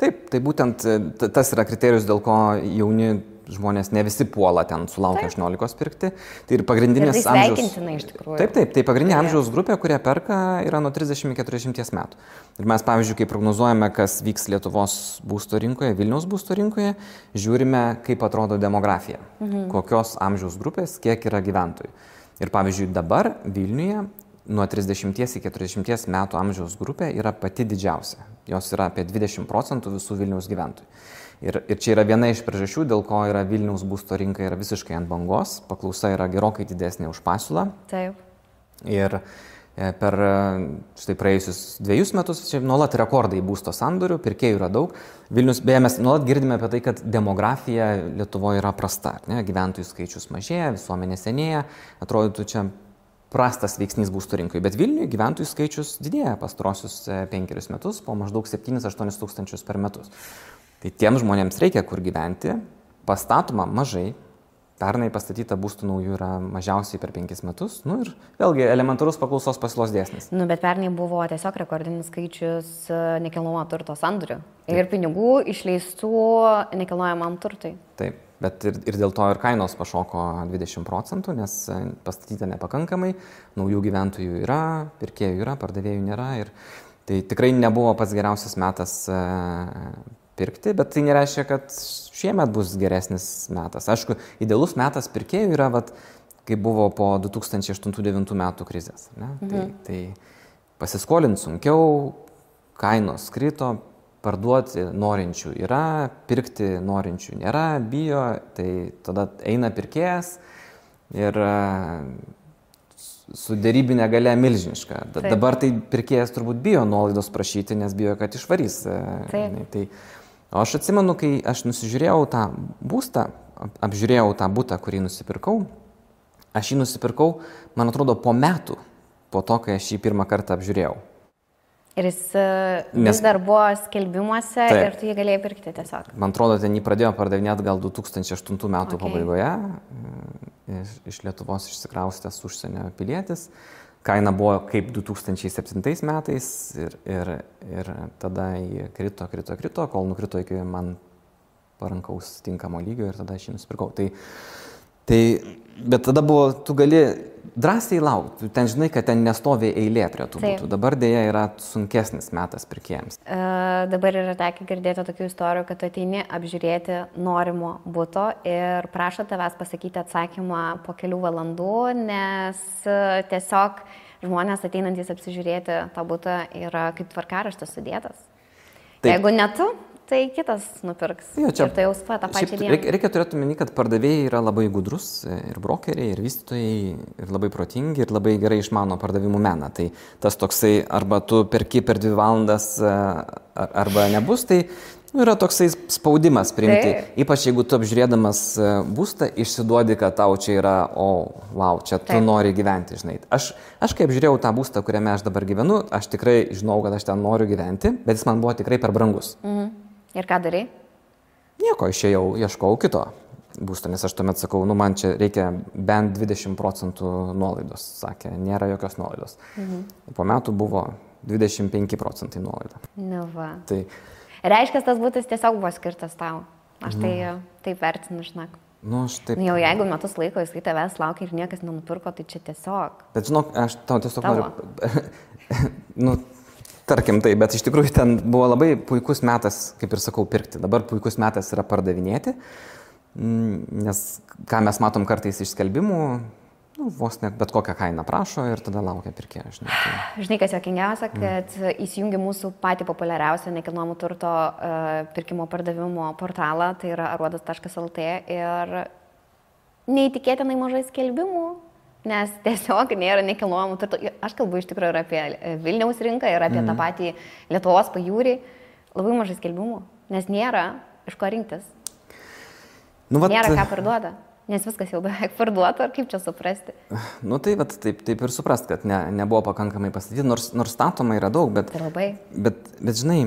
Taip, tai būtent tas yra kriterijus, dėl ko jauni žmonės ne visi puola ten sulaukia 18 pirkti. Tai ir pagrindinės ir tai sveikintina iš tikrųjų. Taip, tai pagrindinė amžiaus grupė, kurie perka, yra nuo 30 iki 40 metų. Ir mes, pavyzdžiui, kai prognozuojame, kas vyks Lietuvos būsto rinkoje, Vilniaus būsto rinkoje, žiūrime, kaip atrodo demografija, kokios amžiaus grupės, kiek yra gyventojų. Ir pavyzdžiui, dabar Vilniuje nuo 30 iki 40 metų amžiaus grupė yra pati didžiausia. Jos yra apie 20% visų Vilniaus gyventojų. Ir čia yra viena iš priežasčių, dėl ko yra Vilniaus būsto rinka yra visiškai ant bangos, paklausa yra gerokai didesnė už pasiūlą. Taip. Ir per štai praėjusius 2 metus čia nuolat rekordai būsto sandorių, pirkėjų yra daug. Vilnius, beje, mes nuolat girdime apie tai, kad demografija Lietuvoje yra prasta. Ne? Gyventojų skaičius mažėja, visuomenė senėja, atrodytų čia prastas veiksnys būsto rinkoje. Bet Vilniuje gyventojų skaičius didėja pastarosius 5 metus, po maždaug 7-8 tūkstančius per metus. Tai tiems žmonėms reikia kur gyventi, pastatoma mažai, pernai pastatyta būstų naujų yra mažiausiai per 5 metus, ir vėlgi elementarus paklausos pasiūlos dėsnis. Bet pernai buvo tiesiog rekordinis skaičius nekilnojamo turto sandorių ir pinigų išleistų nekilnojamam turtui. Taip, bet ir dėl to ir kainos pašoko 20%, nes pastatyta nepakankamai, naujų gyventojų yra, pirkėjų yra, pardavėjų nėra ir tai tikrai nebuvo pats geriausias metas pirkti, bet tai nereiškia, kad šiemet bus geresnis metas. Aišku, idealus metas pirkėjų yra, kai buvo po 2008-2009 metų krizės. Tai pasiskolinti sunkiau, kainos krito, parduoti norinčių yra, pirkti norinčių nėra, bijo, tai tada eina pirkėjas ir su dėrybinė galia milžiniška. Dabar tai pirkėjas turbūt bijo nuolaidos prašyti, nes bijo, kad išvarys. O aš atsimenu, kai aš nusižiūrėjau tą būstą, apžiūrėjau tą butą, kurį nusipirkau, aš jį nusipirkau, man atrodo, po metų, po to, kai aš jį pirmą kartą apžiūrėjau. Ir jis vis dar buvo skelbimuose ir tu jį galėjai pirkti tiesiog. Man atrodo, ten jį pradėjo pardavinėti gal 2008 metų pabaigoje, iš Lietuvos išsikraustęs užsienio pilietis. Kaina buvo kaip 2007 metais ir tada jį krito, kol nukrito iki man parankaus tinkamo lygio ir tada aš jį nusipirkau. Bet tada buvo, tu gali drąsiai laukti, ten žinai, kad ten nestovi eilė prie tų būtų. Dabar dėja yra sunkesnis metas pirkėjams. Dabar yra tekę girdėti tokių istorijų, kad tu ateini apžiūrėti norimo buto ir prašo tavęs pasakyti atsakymą po kelių valandų, nes tiesiog žmonės ateinantys apsižiūrėti tą butą yra kaip tvarkaraštis sudėtas. Taip. Jeigu ne tu, tai kitas nupirks. Ir tai jau tą pačią dieną. Reikia turėti omeny, kad pardavėjai yra labai gudrus, ir brokeriai, ir vystytojai, ir labai protingi, ir labai gerai išmano pardavimų meną. Tai tas toksai, arba tu perki per 2 valandas, arba nebus, tai yra toksai spaudimas priimti. Ypač jeigu tu apžiūrėdamas būstą išsiduodi, kad tau čia yra, čia tu nori gyventi, žinai. Aš kai apžiūrėjau tą būstą, kuriame aš dabar gyvenu, aš tikrai žinau, kad aš ten noriu gyventi, bet jis man buvo tikrai per brangus. Ir ką darai? Nieko, išėjau, ieškau kito būsto, nes aš tuomet sakau, man čia reikia bent 20% nuolaidos, sakė, nėra jokios nuolaidos. Po metų buvo 25% nuolaida. Tai reiškia, tas būtas tiesiog buvo skirtas tau. Aš tai taip vertinu, žinok. Jau jeigu metus laiko jisai tavęs laukia ir niekas nenupirko, tai čia tiesiog. Bet žinok, aš tau tiesiog noriu... Tarkim tai, bet iš tikrųjų ten buvo labai puikus metas, kaip ir sakau, pirkti. Dabar puikus metas yra pardavinėti, nes ką mes matom kartais iš skelbimų, vos net bet kokią kainą prašo ir tada laukia pirkėjo. Žinai, kas juokingiausia, kad įsijungi mūsų patį populiariausią nekilnojamo turto pirkimo pardavimo portalą, tai yra aruodas.lt ir neįtikėtinai mažai skelbimų. Nes tiesiog nėra nekilnojamų turto. Aš kalbu iš tikrųjų ir apie Vilniaus rinką, ir apie tą patį Lietuvos pajūrį. Labai mažai skelbimų, nes nėra iš ko rinktis. Nėra ką parduoda. Nes viskas jau beveik parduota, ar kaip čia suprasti? Nu tai vat, taip ir suprast, kad nebuvo pakankamai pastatyti, nors statoma yra daug, bet žinai,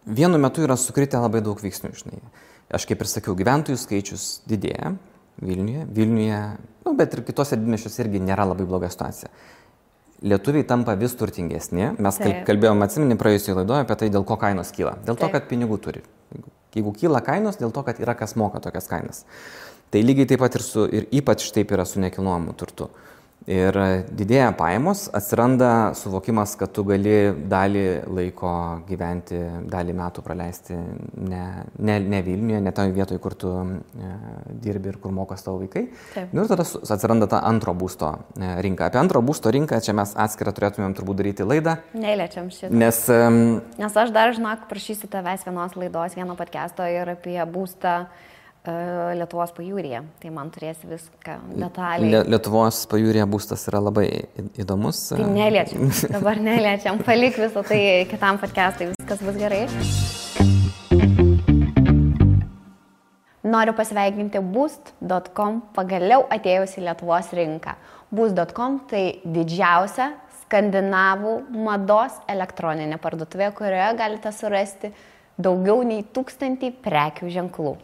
vienu metu yra sukritę labai daug veiksnių, žinai. Aš kaip ir sakiau, gyventojų skaičius didėja Vilniuje, nu, bet ir kitose didmiesčiuose irgi nėra labai bloga situacija. Lietuviai tampa vis turtingesni. Mes kalbėjome, atsimeni, praėjusioje laidoje apie tai, dėl ko kainos kyla. Dėl to, kad pinigų turi. Jeigu kyla kainos, dėl to, kad yra kas moka tokias kainas. Tai lygiai taip pat ir ypač taip yra su nekilnojamu turtu. Ir didėja pajamos, atsiranda suvokimas, kad tu gali dalį laiko gyventi, dalį metų praleisti ne Vilniuje, ne toje vietoje, kur tu dirbi ir kur mokas tavo vaikai. Ir tada atsiranda ta antro būsto rinka. Apie antro būsto rinką čia mes atskirą turėtumėm turbūt daryti laidą. Neliečiam šitą. Nes aš dar, žinok, prašysiu tavęs vienos laidos, vieno podcast'o ir apie būstą Lietuvos pajūryje. Tai man turėsi viską detaliai. Lietuvos pajūryje būstas yra labai įdomus. Tai neliečiam. Dabar neliečiam. Palik visą tai kitam podcast'ui. Viskas bus gerai. Noriu pasveikinti Boost.com pagaliau atėjus į Lietuvos rinką. Boost.com tai didžiausia skandinavų mados elektroninė parduotuvė, kurioje galite surasti daugiau nei 1000 prekių ženklų.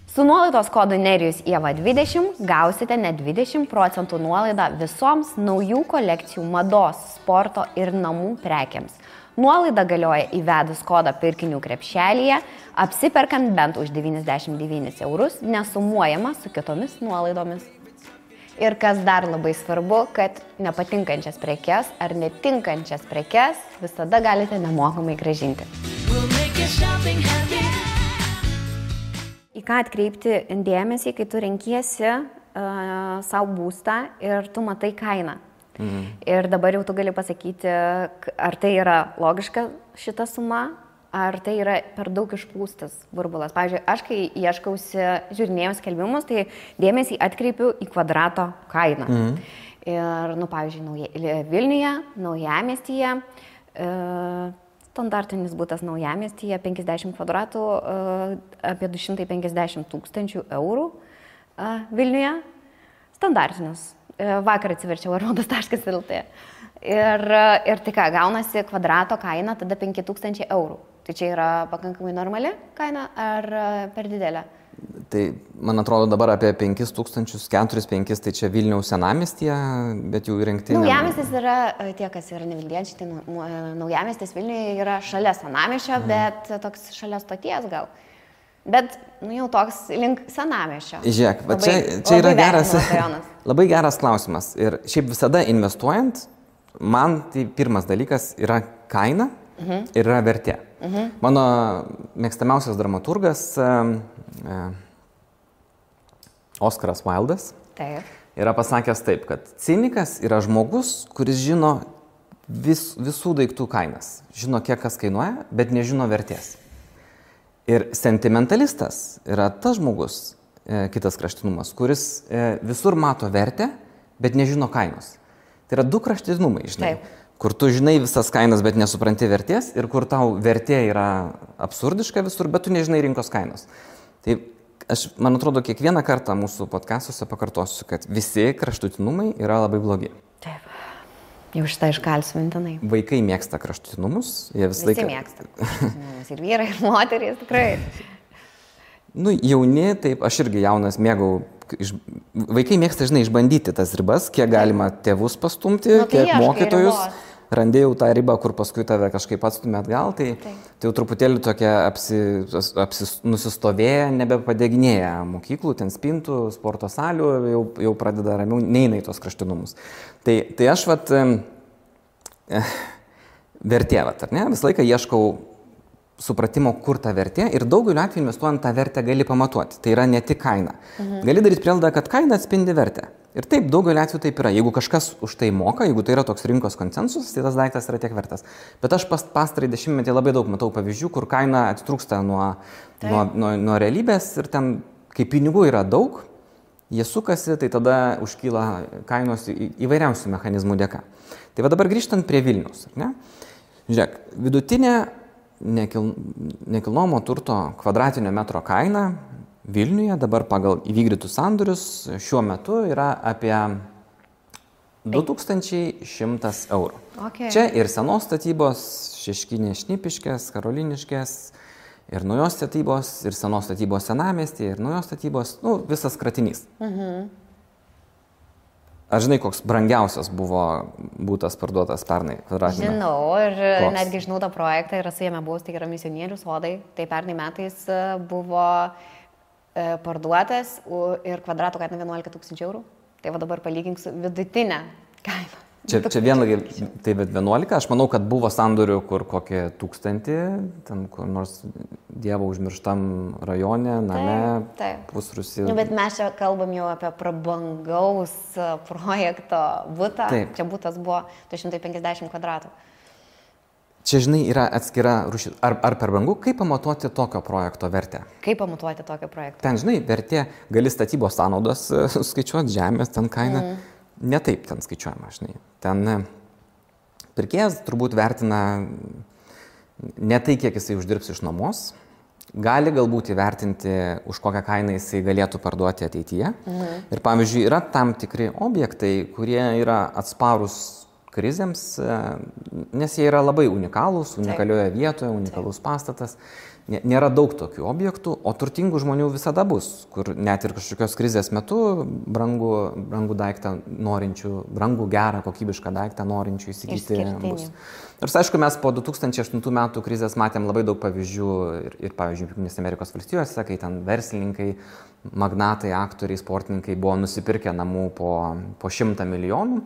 Su nuolaidos kodu Nerijus Ieva 20 gausite net 20% nuolaidą visoms naujų kolekcijų mados, sporto ir namų prekiams. Nuolaida galioja įvedus kodą pirkinių krepšelyje, apsiperkant bent už 99 eurus, nesumuojama su kitomis nuolaidomis. Ir kas dar labai svarbu, kad nepatinkančias prekes ar netinkančias prekes visada galite nemokamai grąžinti. Į ką atkreipti dėmesį, kai tu renkiesi savo būstą ir tu matai kainą. Ir dabar jau tu gali pasakyti, ar tai yra logiška šita suma, ar tai yra per daug išpūstas burbulas. Pavyzdžiui, aš kai ieškausi žiūrinėjau skelbimus, tai dėmesį atkreipiu į kvadrato kainą. Ir, nu, pavyzdžiui, Vilniuje, Naujamiestyje, standartinis būtas Naujamiestyje, 50 kvadratų, apie 250 000 eurų Vilniuje. Standartinis. Vakar atsiverčiau arodas.lt. Ir tai ką, gaunasi kvadrato kaina tada 5000 eurų. Tai čia yra pakankamai normali kaina ar per didelė? Tai, man atrodo, dabar apie 5000, 4-5, tai čia Vilniaus senamiestyje, bet jau įrengti... Naujamiestis yra, tie, kas yra nevilniečiai, tai Naujamiestis Vilniuje yra šalia senamiesčio, bet toks šalia stoties gal. Bet, nu, jau toks link senamiesčio. Žiūrėk, va čia yra geras, labai geras klausimas. Ir šiaip visada investuojant, man tai pirmas dalykas yra kaina ir yra vertė. Mano mėgstamiausias dramaturgas Oskaras Wildas yra pasakęs taip, kad cinikas yra žmogus, kuris žino visų daiktų kainas. Žino, kiek kas kainuoja, bet nežino vertės. Ir sentimentalistas yra tas žmogus, kitas kraštutinumas, kuris visur mato vertę, bet nežino kainos. Tai yra du kraštutinumai, žinai. Taip. Kur tu žinai visas kainas, bet nesupranti vertės, ir kur tau vertė yra absurdiška visur, bet tu nežinai rinkos kainos. Tai aš, man atrodo, kiekvieną kartą mūsų podcastuose pakartosiu, kad visi kraštutinumai yra labai blogi. Taip. Jau šitą iškalsiu mintinai. Vaikai mėgsta kraštutinumus. Visi mėgsta kraštutinumus. Ir vyrai, ir moterys, tikrai. Nu, jauni, taip, aš irgi jaunas mėgau. Vaikai mėgsta, žinai, išbandyti tas ribas, kiek galima tėvus pastumti, kiek mokytojus. Randėjau tą ribą, kur paskui tave kažkaip atstumė atgal, tai jau truputėlį tokia nusistovėję, nebepadeginėję mokyklų, ten spintų, sporto salių, jau pradeda ramiau, neina į tos kraštutinumus. Tai aš vertė, ar ne, visą laiką ieškau supratimo, kur ta vertė, ir daugeliu atveju investuojant tą vertę gali pamatuoti. Tai yra ne tik kaina. Gali daryti prielaidą, kad kaina atspindi vertę. Ir taip, daugeliu atveju taip yra. Jeigu kažkas už tai moka, jeigu tai yra toks rinkos konsensusas, tai tas daiktas yra tiek vertas. Bet aš pastarąjį dešimtmetį labai daug matau pavyzdžių, kur kaina atitrūksta nuo realybės ir ten, kai pinigų yra daug, jie sukasi, tai tada užkyla kainos įvairiausių mechanizmų dėka. Tai va dabar grįžtant prie Vilniaus. Ne? Žiūrėk, vidutinė nekilnojamo turto kvadratinio metro kaina Vilniuje dabar pagal įvykdytus sandorius šiuo metu yra apie 2100 eurų. Okay. Čia ir senos statybos, Šeškinės, Šnipiškės, Karoliniškės, ir naujos statybos, ir senos statybos Senamiestyje, ir naujos statybos, visas kratinys. Aš žinai, koks brangiausias buvo būtas parduotas pernai kvadratinį? Žinau, ir netgi žinau tą projektą, ir esu jame buvus, tai yra Misionierių sodai. Tai pernai metais buvo parduotas ir kvadrato kaina 11 000 eurų. Tai va dabar palygink su vidutinė kaina. Čia vienlagiai, tai 11, aš manau, kad buvo sandorių, kur kokie 1000, ten kur nors Dievo užmirštam rajone, name, pusrūsį. Bet mes čia kalbam jau apie prabangaus projekto butą. Taip. Čia butas buvo 250 kvadratų. Čia, žinai, yra atskira rūšis. Ar per brangu, kaip pamatuoti tokio projekto vertę? Kaip pamatuoti tokio projekto? Ten, žinai, vertė, gali statybos sąnaudas skaičiuoti, žemės, ten kaina. Ne taip ten skaičiuojama, žinai. Ten pirkėjas turbūt vertina ne tai, kiek jisai uždirbs iš nuomos. Gali galbūt įvertinti, už kokią kainą jisai galėtų parduoti ateityje. Ir pavyzdžiui, yra tam tikri objektai, kurie yra atsparūs krizėms, nes jie yra labai unikalūs, unikalioje vietoje, unikalus pastatas. Nėra daug tokių objektų, o turtingų žmonių visada bus, kur net ir kažkokios krizės metu brangų daiktą norinčių, brangų gerą, kokybišką daiktą norinčių įsigyti bus. Ir aišku, mes po 2008 metų krizės matėm labai daug pavyzdžių ir pavyzdžiui, Jungtinėse Amerikos valstijose, kai ten verslininkai, magnatai, aktoriai, sportininkai buvo nusipirkę namų po 100 milijonų.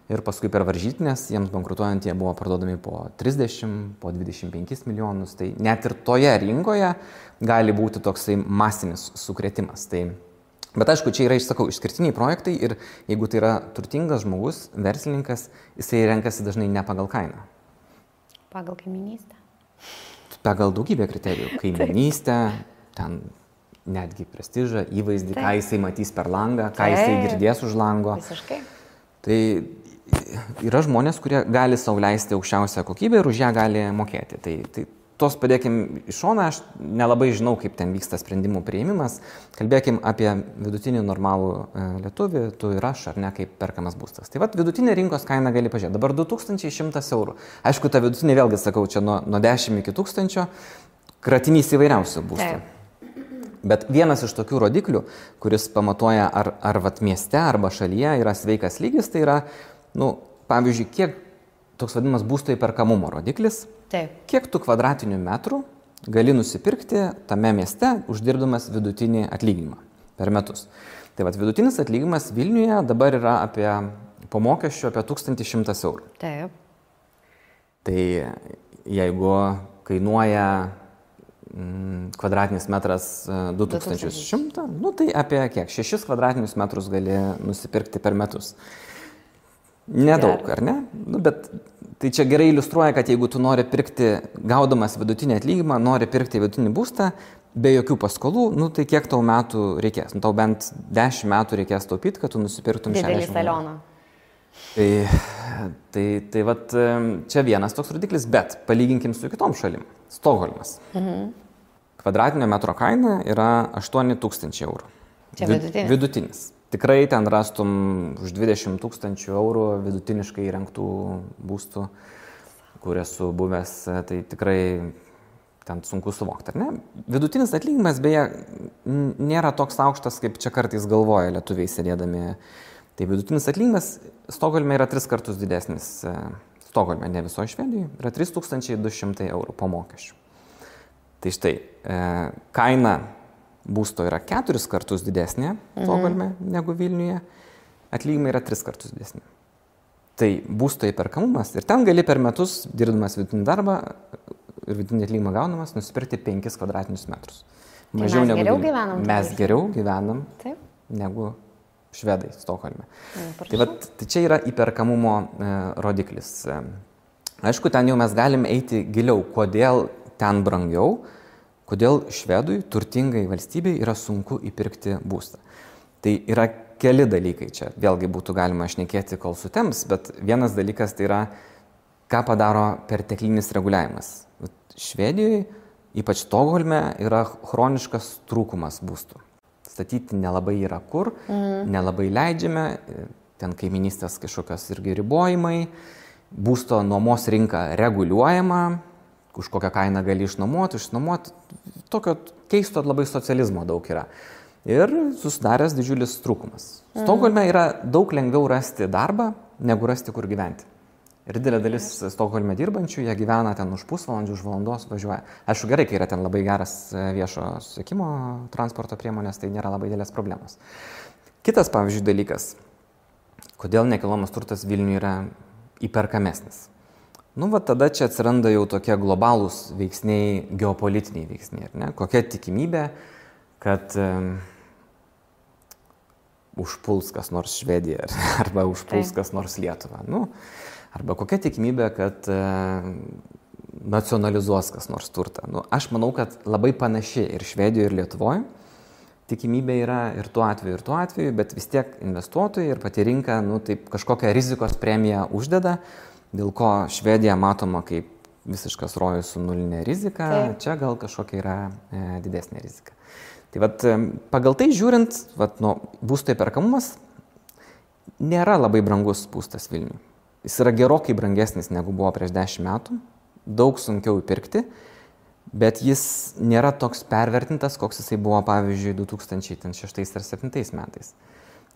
Ir paskui per varžytinės, jiems bankrutuojant, jie buvo parduodami po 30, po 25 milijonus. Tai net ir toje rinkoje gali būti toksai masinis sukrėtimas. Bet aišku, čia yra, išsakau, išskirtiniai projektai ir jeigu tai yra turtingas žmogus, verslininkas, jisai renkasi dažnai ne pagal kainą. Pagal kaiminystę. Pagal daugybę kriterijų. Kaiminystę, ten netgi prestižą, įvaizdį, ką jisai matys per langą, ką jisai girdės už lango. Visiškai. Tai yra žmonės, kurie gali sau leisti aukščiausią kokybę ir už ją gali mokėti. Tai tos padėkim į šoną, aš nelabai žinau, kaip ten vyksta sprendimų priėmimas. Kalbėkim apie vidutinį normalų lietuvį, tu ir aš, ar ne, kaip perkamas būstas. Tai vidutinė rinkos kaina gali pažiūrėti. Dabar 2100 eurų. Aišku, ta vidutinė, vėlgi sakau, čia nuo 10 iki 1000, kratinys įvairiausių būstų. Bet vienas iš tokių rodiklių, kuris pamatuoja, ar mieste arba šalyje yra sveikas lygis, tai yra, pavyzdžiui, kiek toks vadinamas būsto įperkamumo rodiklis, kiek tu kvadratinių metrų gali nusipirkti tame mieste, uždirbdamas vidutinį atlyginimą per metus. Tai vidutinis atlyginimas Vilniuje dabar yra po mokesčių apie 1100 eurų. Taip. Tai jeigu kainuoja kvadratinis metras 2100, tai apie kiek? 6 kvadratinius metrus gali nusipirkti per metus. Nedaug, ar ne? Bet tai čia gerai iliustruoja, kad jeigu tu nori pirkti, gaudamas vidutinį atlyginimą, nori pirkti vidutinį būstą, be jokių paskolų, tai kiek tau metų reikės? Tau bent 10 metų reikės taupyti, kad tu nusipirktum 60. Didelį salioną. Tai čia vienas toks rodiklis, bet palyginkim su kitom šalim. Stokholmas. Kvadratinio metro kaina yra 8000 eurų. Čia vidutinis? Vidutinis. Tikrai ten rastum už 20 000 eurų vidutiniškai įrengtų būstų, kur esu buvęs, tai tikrai ten sunku suvokti, ar ne? Vidutinis atlyginimas, beje, nėra toks aukštas, kaip čia kartais galvoja lietuviai sėdėdami. Tai vidutinis atlyginimas Stokholme yra 3 kartus didesnis. Stokholme, ne visoje Švedijoje, yra 3200 eurų po mokesčių. Tai štai, kaina būsto yra 4 kartus didesnė Stokholme negu Vilniuje, atlyginimai yra 3 kartus didesnė. Tai būsto įperkamumas ir ten gali per metus, dirbdamas vidutinį darbą ir vidutinį atlyginimą gaunamas, nusipirkti 5 kvadratinius metrus. Mažiau tai mes geriau gyvenam. Mes geriau gyvenam negu švedai Stokholme. Tai čia yra įperkamumo rodiklis. Aišku, ten jau mes galim eiti giliau, kodėl ten brangiau, kodėl švedui, turtingai valstybei, yra sunku įpirkti būstą. Tai yra keli dalykai čia. Vėlgi būtų galima šnekėti, kol sutems, bet vienas dalykas tai yra, ką padaro perteklinis reguliavimas. Švedijoje ypač Stokholme, yra chroniškas trūkumas būstų. Statyti nelabai yra kur, nelabai leidžiame, ten kaiminystės kažkokios irgi ribojimai, būsto nuomos rinka reguliuojama, už kokią kainą gali išnuomoti, tokio keisto labai socializmo daug yra. Ir susidaręs didžiulis trūkumas. Stokholme yra daug lengviau rasti darbą, negu rasti kur gyventi. Ir didelė dalis Stokholme dirbančių, jie gyvena ten už pusvalandžių, už valandos važiuoja. Aišku, gerai, kai yra ten labai geras viešo susisiekimo transporto priemonės, tai nėra labai didelės problemos. Kitas, pavyzdžiui, dalykas, kodėl nekilnojamas turtas Vilniuje yra įperkamesnis. Tada čia atsiranda jau tokie globalūs veiksniai, geopolitiniai veiksniai. Ne? Kokia tikimybė, kad užpuls kas nors Švediją arba užpuls kas nors Lietuvą. Arba kokia tikimybė, kad nacionalizuos kas nors turtą. Aš manau, kad labai panaši ir Švedijoje, ir Lietuvoje tikimybė yra ir tuo atveju, bet vis tiek investuotojai ir pati rinka taip kažkokią rizikos premiją uždeda, dėl ko Švedija matoma kaip visiškas rojus su nulinė rizika, čia gal kažkokia yra didesnė rizika. Tai pagal tai žiūrint, būsto įperkamumas nėra labai brangus būstas Vilniuje. Jis yra gerokai brangesnis negu buvo prieš 10 metų, daug sunkiau įpirkti, bet jis nėra toks pervertintas, koks jisai buvo, pavyzdžiui, 2006 ar 2007 metais.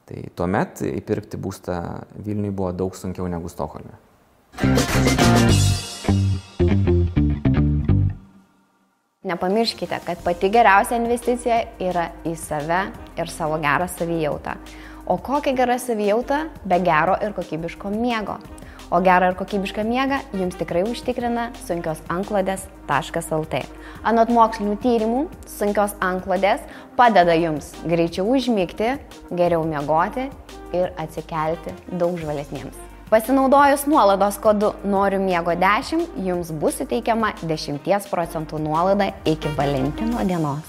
Tai tuomet įpirkti būstą Vilniuje buvo daug sunkiau negu Stokholme. Nepamirškite, kad pati geriausia investicija yra į save ir savo gerą savijautą. O kokia gera savijauta be gero ir kokybiško miego? O gerą ir kokybišką miegą jums tikrai užtikrina sunkiosantklodės.lt. Anot mokslinių tyrimų, sunkios antklodės padeda jums greičiau užmigti, geriau miegoti ir atsikelti daug žvalesniems. Pasinaudojus nuolaidos kodu Noriu miego 10, jums bus suteikiama 10% nuolaida iki Valentino dienos.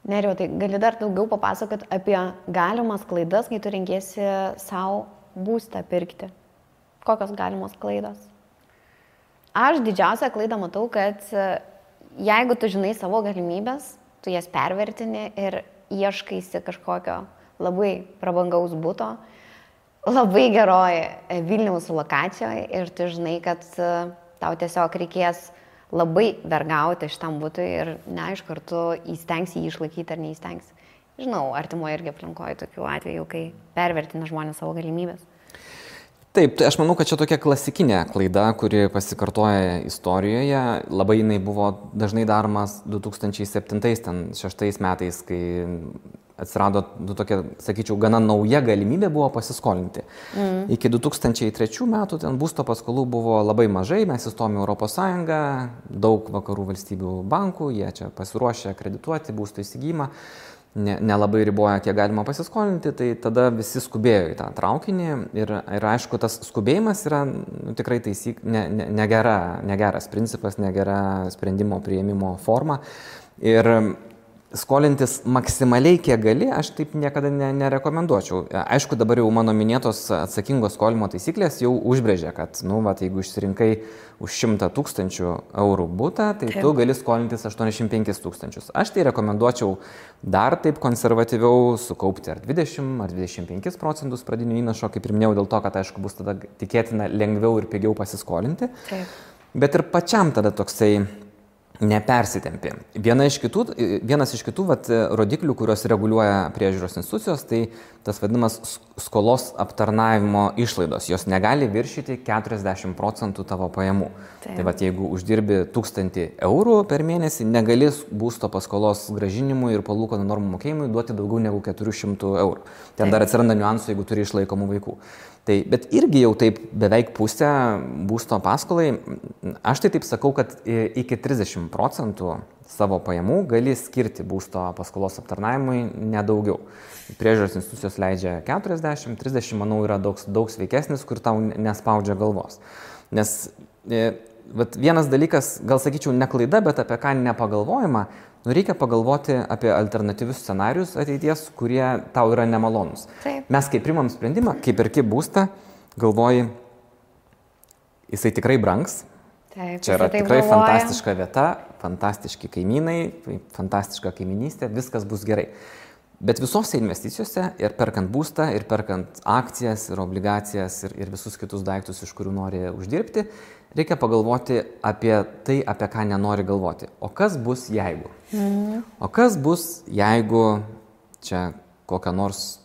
Nerijau, tai gali dar daugiau papasakoti apie galimas klaidas, kai tu renkiesi savo būstą pirkti. Kokios galimos klaidos? Aš didžiausią klaidą matau, kad jeigu tu žinai savo galimybės, tu jas pervertini ir ieškaisi kažkokio labai prabangaus buto, labai geroje Vilniaus lokacijoje ir tu žinai, kad tau tiesiog reikės labai vergauti šitam butui ir neaišku, ar tu įstengsi jį išlaikyti ar neįstengsi. Žinau, artimoje irgi aplinkoje tokių atvejų, kai pervertina žmonės savo galimybės. Taip, tai aš manau, kad čia tokia klasikinė klaida, kuri pasikartoja istorijoje. Labai jinai buvo dažnai daromas 2007-2006 metais, kai atsirado tokia, sakyčiau, gana nauja galimybė buvo pasiskolinti. Iki 2003 metų ten būsto paskolų buvo labai mažai, mes įstojome į Europos Sąjungą, daug vakarų valstybių bankų, jie čia pasiruošė kredituoti būsto įsigijimą, nelabai riboja, kiek galima pasiskolinti, tai tada visi skubėjo į tą traukinį ir aišku, tas skubėjimas yra tikrai negeras principas, negera sprendimo priėmimo forma. Ir skolintis maksimaliai kiek gali, aš taip niekada nerekomenduočiau. Aišku, dabar jau mano minėtos atsakingos skolimo taisyklės jau užbrėžė, kad, jeigu išsirinkai už 100 000 eurų butą, tai tu gali skolintis 85 000. Aš tai rekomenduočiau dar taip konservatyviau sukaupti ar 20 ar 25 procentus pradinio įnašo, kaip ir minėjau, dėl to, kad, aišku, bus tada tikėtina lengviau ir pigiau pasiskolinti. Taip. Bet ir pačiam tada toksai nepersitempė. Vienas iš kitų rodiklių, kurios reguliuoja priežiūros institucijos, tai tas vadinamas skolos aptarnavimo išlaidos. Jos negali viršyti 40% tavo pajamų. Taip. Tai jeigu uždirbi 1000 eurų per mėnesį, negali būsto paskolos grąžinimui ir palūkanų normų mokėjimui duoti daugiau negu 400 eurų. Ten dar atsiranda niuansų, jeigu turi išlaikomų vaikų. Bet irgi jau taip beveik pusę būsto paskolai, aš tai taip sakau, kad iki 30% savo pajamų gali skirti būsto paskolos aptarnavimui nedaugiau. Priežiūros institucijos leidžia 40, 30, manau, yra daug sveikesnis, kur tau nespaudžia galvos. Nes vienas dalykas, gal sakyčiau, ne klaida, bet apie ką nepagalvojama, reikia pagalvoti apie alternatyvius scenarius ateities, kurie tau yra nemalonus. Taip. Mes kai primam sprendimą, kai perki būstą, galvoji, jisai tikrai brangs. Taip, Čia yra tikrai fantastiška vieta, fantastiški kaimynai, fantastiška kaiminystė, viskas bus gerai. Bet visose investicijose ir perkant būstą, ir perkant akcijas, ir obligacijas, ir visus kitus daiktus, iš kurių nori uždirbti, reikia pagalvoti apie tai, apie ką nenori galvoti. O kas bus jeigu? O kas bus jeigu čia kokia nors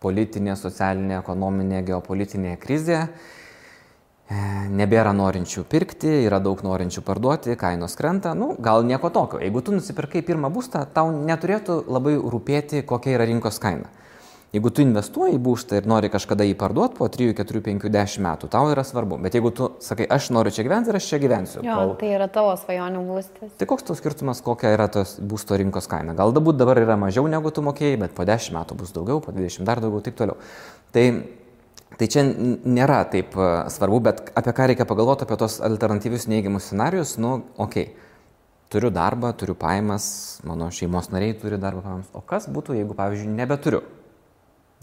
politinė, socialinė, ekonominė, geopolitinė krizė, nebėra norinčių pirkti, yra daug norinčių parduoti, kainos krenta, gal nieko tokio. Jeigu tu nusipirkai pirmą būstą, tau neturėtų labai rūpėti, kokia yra rinkos kaina. Jeigu tu investuoji į būstą ir nori kažkada jį parduoti po 3, 4, 5, 10 metų, tau yra svarbu. Bet jeigu tu sakai, aš noriu čia gyventi ir aš čia gyvensiu. Tai yra tavo svajonių būstas. Tai koks tau skirtumas, kokia yra tos būsto rinkos kaina? Gal dabar yra mažiau negu tu mokėjai, bet po 10 metų bus daugiau, po 20 dar daugiau, taip toliau. Tai čia nėra taip svarbu, bet apie ką reikia pagalvoti, apie tos alternatyvius neigiamus scenarius, turiu darbą, turiu pajamas, mano šeimos nariai turi darbą pajamas. O kas būtų, jeigu, pavyzdžiui, nebeturiu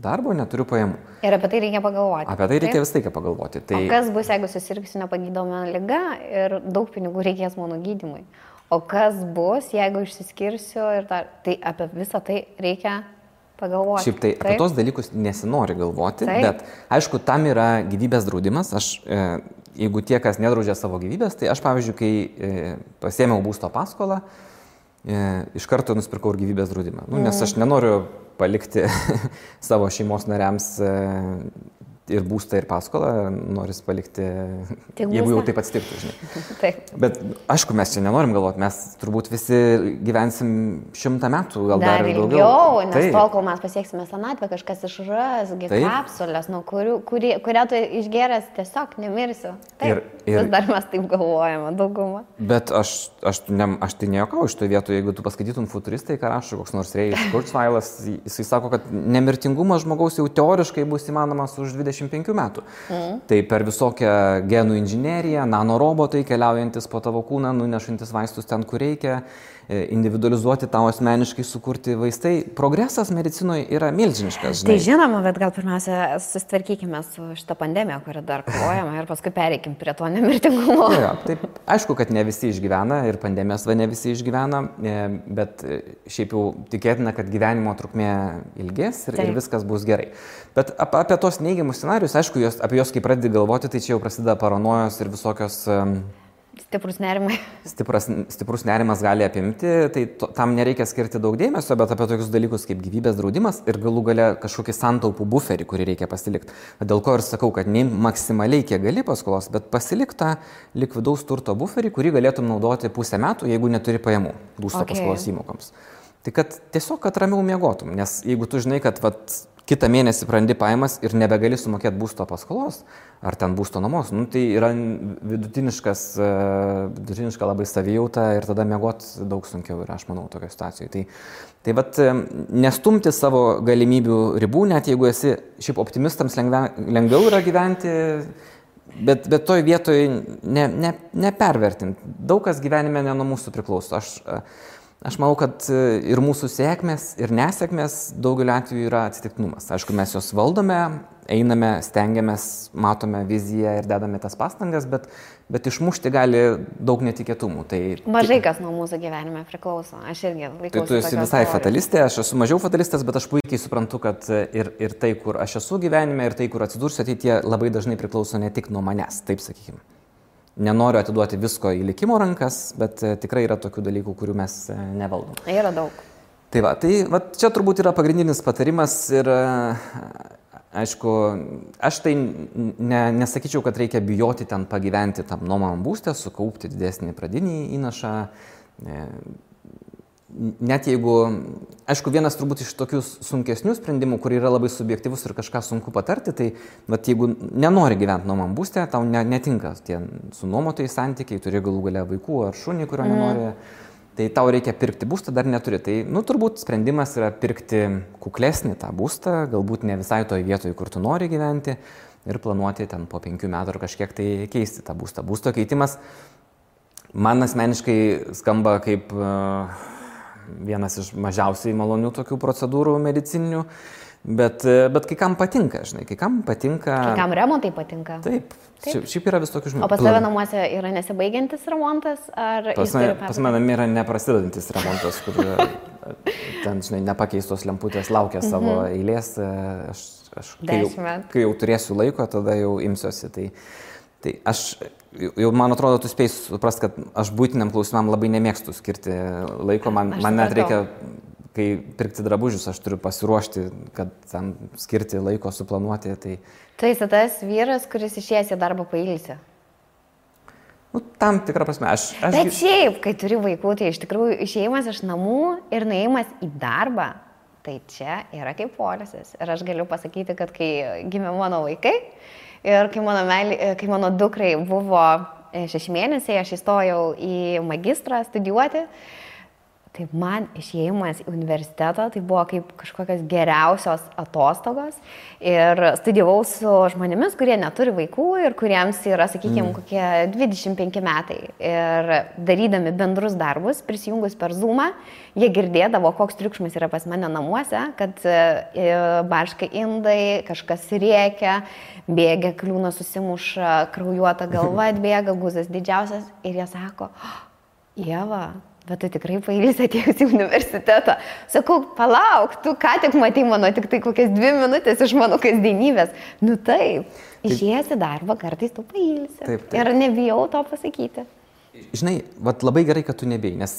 darbo, neturiu pajamų? Ir apie tai reikia pagalvoti. Apie tai reikia vis laiką pagalvoti. O kas bus, jeigu susirgsiu nepagydoma liga ir daug pinigų reikės mano gydymui? O kas bus, jeigu išsiskirsiu ir tai apie visą tai reikia pagalvoti. Šiaip tai apie tos dalykus nesinori galvoti, bet aišku, tam yra gyvybės draudimas. Jeigu tie, kas nedraudžia savo gyvybės, tai aš, pavyzdžiui, kai pasiėmiau būsto paskolą, iš karto nusipirkau ir gyvybės draudimą. Nes aš nenoriu palikti savo šeimos nariams ir būstą, ir paskolą, noris palikti, jeigu jau taip atsitiktų, žinai. Taip. Bet aišku, mes čia nenorim galvoti, mes turbūt visi gyvensim 100 metų, gal dar ilgiau. Nes tol, kol mes pasieksime senatvę, kažkas išras, kapsulės, kurią tu išgeręs tiesiog nemirsiu. Taip, vis dar mes taip galvojame, daugumą. Bet aš tai nejuokauju iš to vietų, jeigu tu paskaitytum futuristai, ką rašo koks nors Rėjus Kurzweilas, jisai sako, kad nemirtingumas žmogaus jau teoriškai bus įmanomas už 25 metų. Tai per visokią genų inžineriją, nanorobotai keliaujantis po tavo kūną, nunešantis vaistus ten, kur reikia, individualizuoti tau asmeniškai sukurti vaistai. Progresas medicinoje yra milžiniškas. Žinai. Tai žinoma, bet gal pirmiausia susitvarkykime su šitą pandemiją, kurią dar kovojame ir paskui pereikim prie to nemirtingumo. Taip, aišku, kad ne visi išgyvena ir pandemijos ne visi išgyvena, bet šiaip jau tikėtina, kad gyvenimo trukmė ilgės ir viskas bus gerai. Bet apie tos neigiamus scenarius, aišku, apie juos kai pradedi galvoti, tai čia jau prasideda paranojos ir visokios... Stiprus nerimai. Stiprus nerimas gali apimti, tai tam nereikia skirti daug dėmesio, bet apie tokius dalykus kaip gyvybės draudimas ir galų gale kažkokį santaupų buferį, kurį reikia pasilikti. Dėl ko ir sakau, kad ne maksimaliai kiek gali paskolos, bet pasilik tą likvidaus turto buferį, kurį galėtum naudoti pusę metų, jeigu neturi pajamų būsto paskolos įmokoms. Tai kad tiesiog, kad ramiau miegotum, nes jeigu tu žinai, kad kitą mėnesį prarandi pajamas ir nebegali sumokėti būsto paskolos ar ten būsto nuomos, tai yra vidutiniška labai savijauta ir tada miegoti daug sunkiau yra, aš manau, tokio situacijoje. Tai nestumti savo galimybių ribų, net jeigu esi šiaip optimistams lengviau yra gyventi, bet toj vietoj nepervertinti. Daug kas gyvenime ne nuo mūsų priklauso. Aš manau, kad ir mūsų sėkmės, ir nesėkmės daugeliu atveju yra atsitiktinumas. Aišku, mes jos valdome, einame, stengiamės, matome viziją ir dedame tas pastangas, bet išmušti gali daug netikėtumų. Mažai kas nuo mūsų gyvenime priklauso. Aš irgi laikausi. Tu esi visai fatalistė, aš esu mažiau fatalistas, bet aš puikiai suprantu, kad ir tai, kur aš esu gyvenime, ir tai, kur atsidursiu ateityje, labai dažnai priklauso ne tik nuo manęs, taip sakykime. Nenoriu atiduoti visko į likimo rankas, bet tikrai yra tokių dalykų, kurių mes nevaldom. Yra daug. Tai čia turbūt yra pagrindinis patarimas ir aišku, aš tai nesakyčiau, kad reikia bijoti ten pagyventi tam nuomamam būste, sukaupti didesnį pradinį įnašą. Net jeigu, aišku, vienas turbūt iš tokių sunkesnių sprendimų, kur yra labai subjektyvus ir kažką sunku patarti, tai jeigu nenori gyventi nuomam būste, tau netinka tie su nuomotojai santykiai, turi galų gale vaikų ar šunį, kurio nenori, tai tau reikia pirkti būstą, dar neturi. Tai, turbūt sprendimas yra pirkti kuklesnį tą būstą, galbūt ne visai toj vietoj, kur tu nori gyventi ir planuoti ten po 5 metų ar kažkiek tai keisti tą būstą. Būsto keitimas man asmeniškai skamba kaip vienas iš mažiausiai malonių tokių procedūrų medicininių, Bet kai kam patinka, žinai, kai kam patinka... Kai kam remontai patinka. Taip. Šiaip yra vis tokių žmonių. O pas tave namuose yra nesibaigiantis remontas? Pas mane yra neprasidedantis remontas, kur ten, žinai, nepakeistos lemputės laukia savo eilės. Kai jau turėsiu laiko, tada jau imsiuosi. Tai aš jau, man atrodo, tu spėjai suprast, kad aš būtiniam klausimam labai nemėgstu skirti laiko. Man net reikia, kai pirkti drabužius, aš turiu pasiruošti, kad tam skirti laiko, suplanuoti. Tai esi tas vyras, kuris išėjęs į darbą pailsi. Tam tikrą prasme. Bet šiaip, kai turi vaikų, tai iš tikrųjų išėjimas iš namų ir nuėjimas į darbą, tai čia yra kaip poilsis. Ir aš galiu pasakyti, kad kai gimė mano vaikai ir kai mano dukrai buvo 6 mėnesiai, aš įstojau į magistrą studijuoti. Tai man išėjimas į universitetą tai buvo kaip kažkokios geriausios atostogos ir studijavau su žmonėmis, kurie neturi vaikų ir kuriems yra, sakykime, kokie 25 metai. Ir darydami bendrus darbus, prisijungus per Zoomą, jie girdėdavo, koks triukšmas yra pas mane namuose, kad barška indai, kažkas rėkia, bėgia, kliūna susimuša, kraujuota galva atbėga, guzas didžiausias ir jie sako, Ieva, bet tu tikrai pailsi atėjus į universitetą. Sakau, palauk, tu ką tik matei mano tik tai kokias 2 minutės iš mano kasdienybės. Nu taip, išėjęs į darbą, kartais tu pailsi. Taip. Ir nebijau to pasakyti. Žinai, labai gerai, kad tu nebijai, nes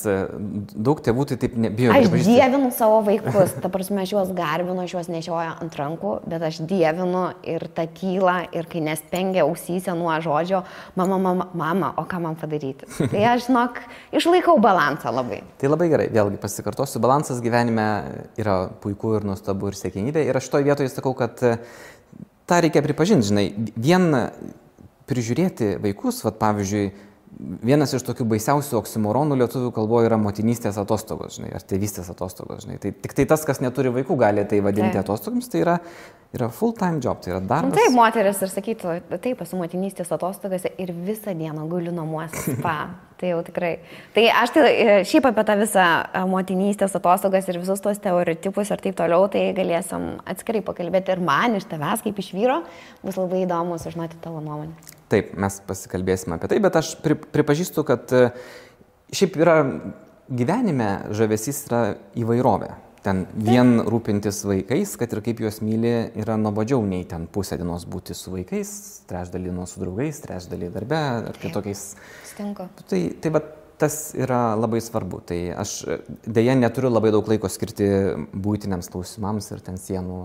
daug tėvų tai taip nebijo. Aš dievinu savo vaikus, ta prasme, aš juos garbinu, aš juos nešioju ant rankų, bet aš dievinu ir tą tylą, ir kai nespengia ausyse nuo žodžio, mama, o ką man padaryti. Tai aš, žinok, išlaikau balansą labai. Tai labai gerai, vėlgi pasikartosiu, balansas gyvenime yra puiku ir nuostabu ir siekiamybė. Ir aš šitoje vietoje sakau, kad tą reikia pripažinti, žinai, vien prižiūrėti vaikus, pavyzdžiui, vienas iš tokių baisiausių oksimoronų lietuvių kalboje yra motinystės atostogos, žinai, ar tėvystės atostogos, žinai. Tai tik tai tas, kas neturi vaikų, gali tai vadinti atostogoms, tai yra full-time job, tai yra darbas. Taip, moteris ir sakytų, taip, esu motinystės atostogose ir visą dieną guliu namuose spa. Tai jau tikrai. Tai aš šiaip apie tą visą motinystės atostogas ir visus tos stereotipus ir taip toliau, tai galėsim atskirai pakalbėti ir man iš tavęs kaip iš vyro bus labai įdomu sužinoti tavo nuomonę. Taip, mes pasikalbėsime apie tai, bet aš pripažįstu, kad šiaip yra gyvenime žavesys yra įvairovė. Ten vien rūpintis vaikais, kad ir kaip juos myli, yra nuobodžiau nei ten pusę dienos būti su vaikais, trečdalį su draugais, trečdalį darbe ar kitokiais. Stinko. Tai tas yra labai svarbu. Tai aš dėja neturiu labai daug laiko skirti būtiniams klausimams ir ten sienų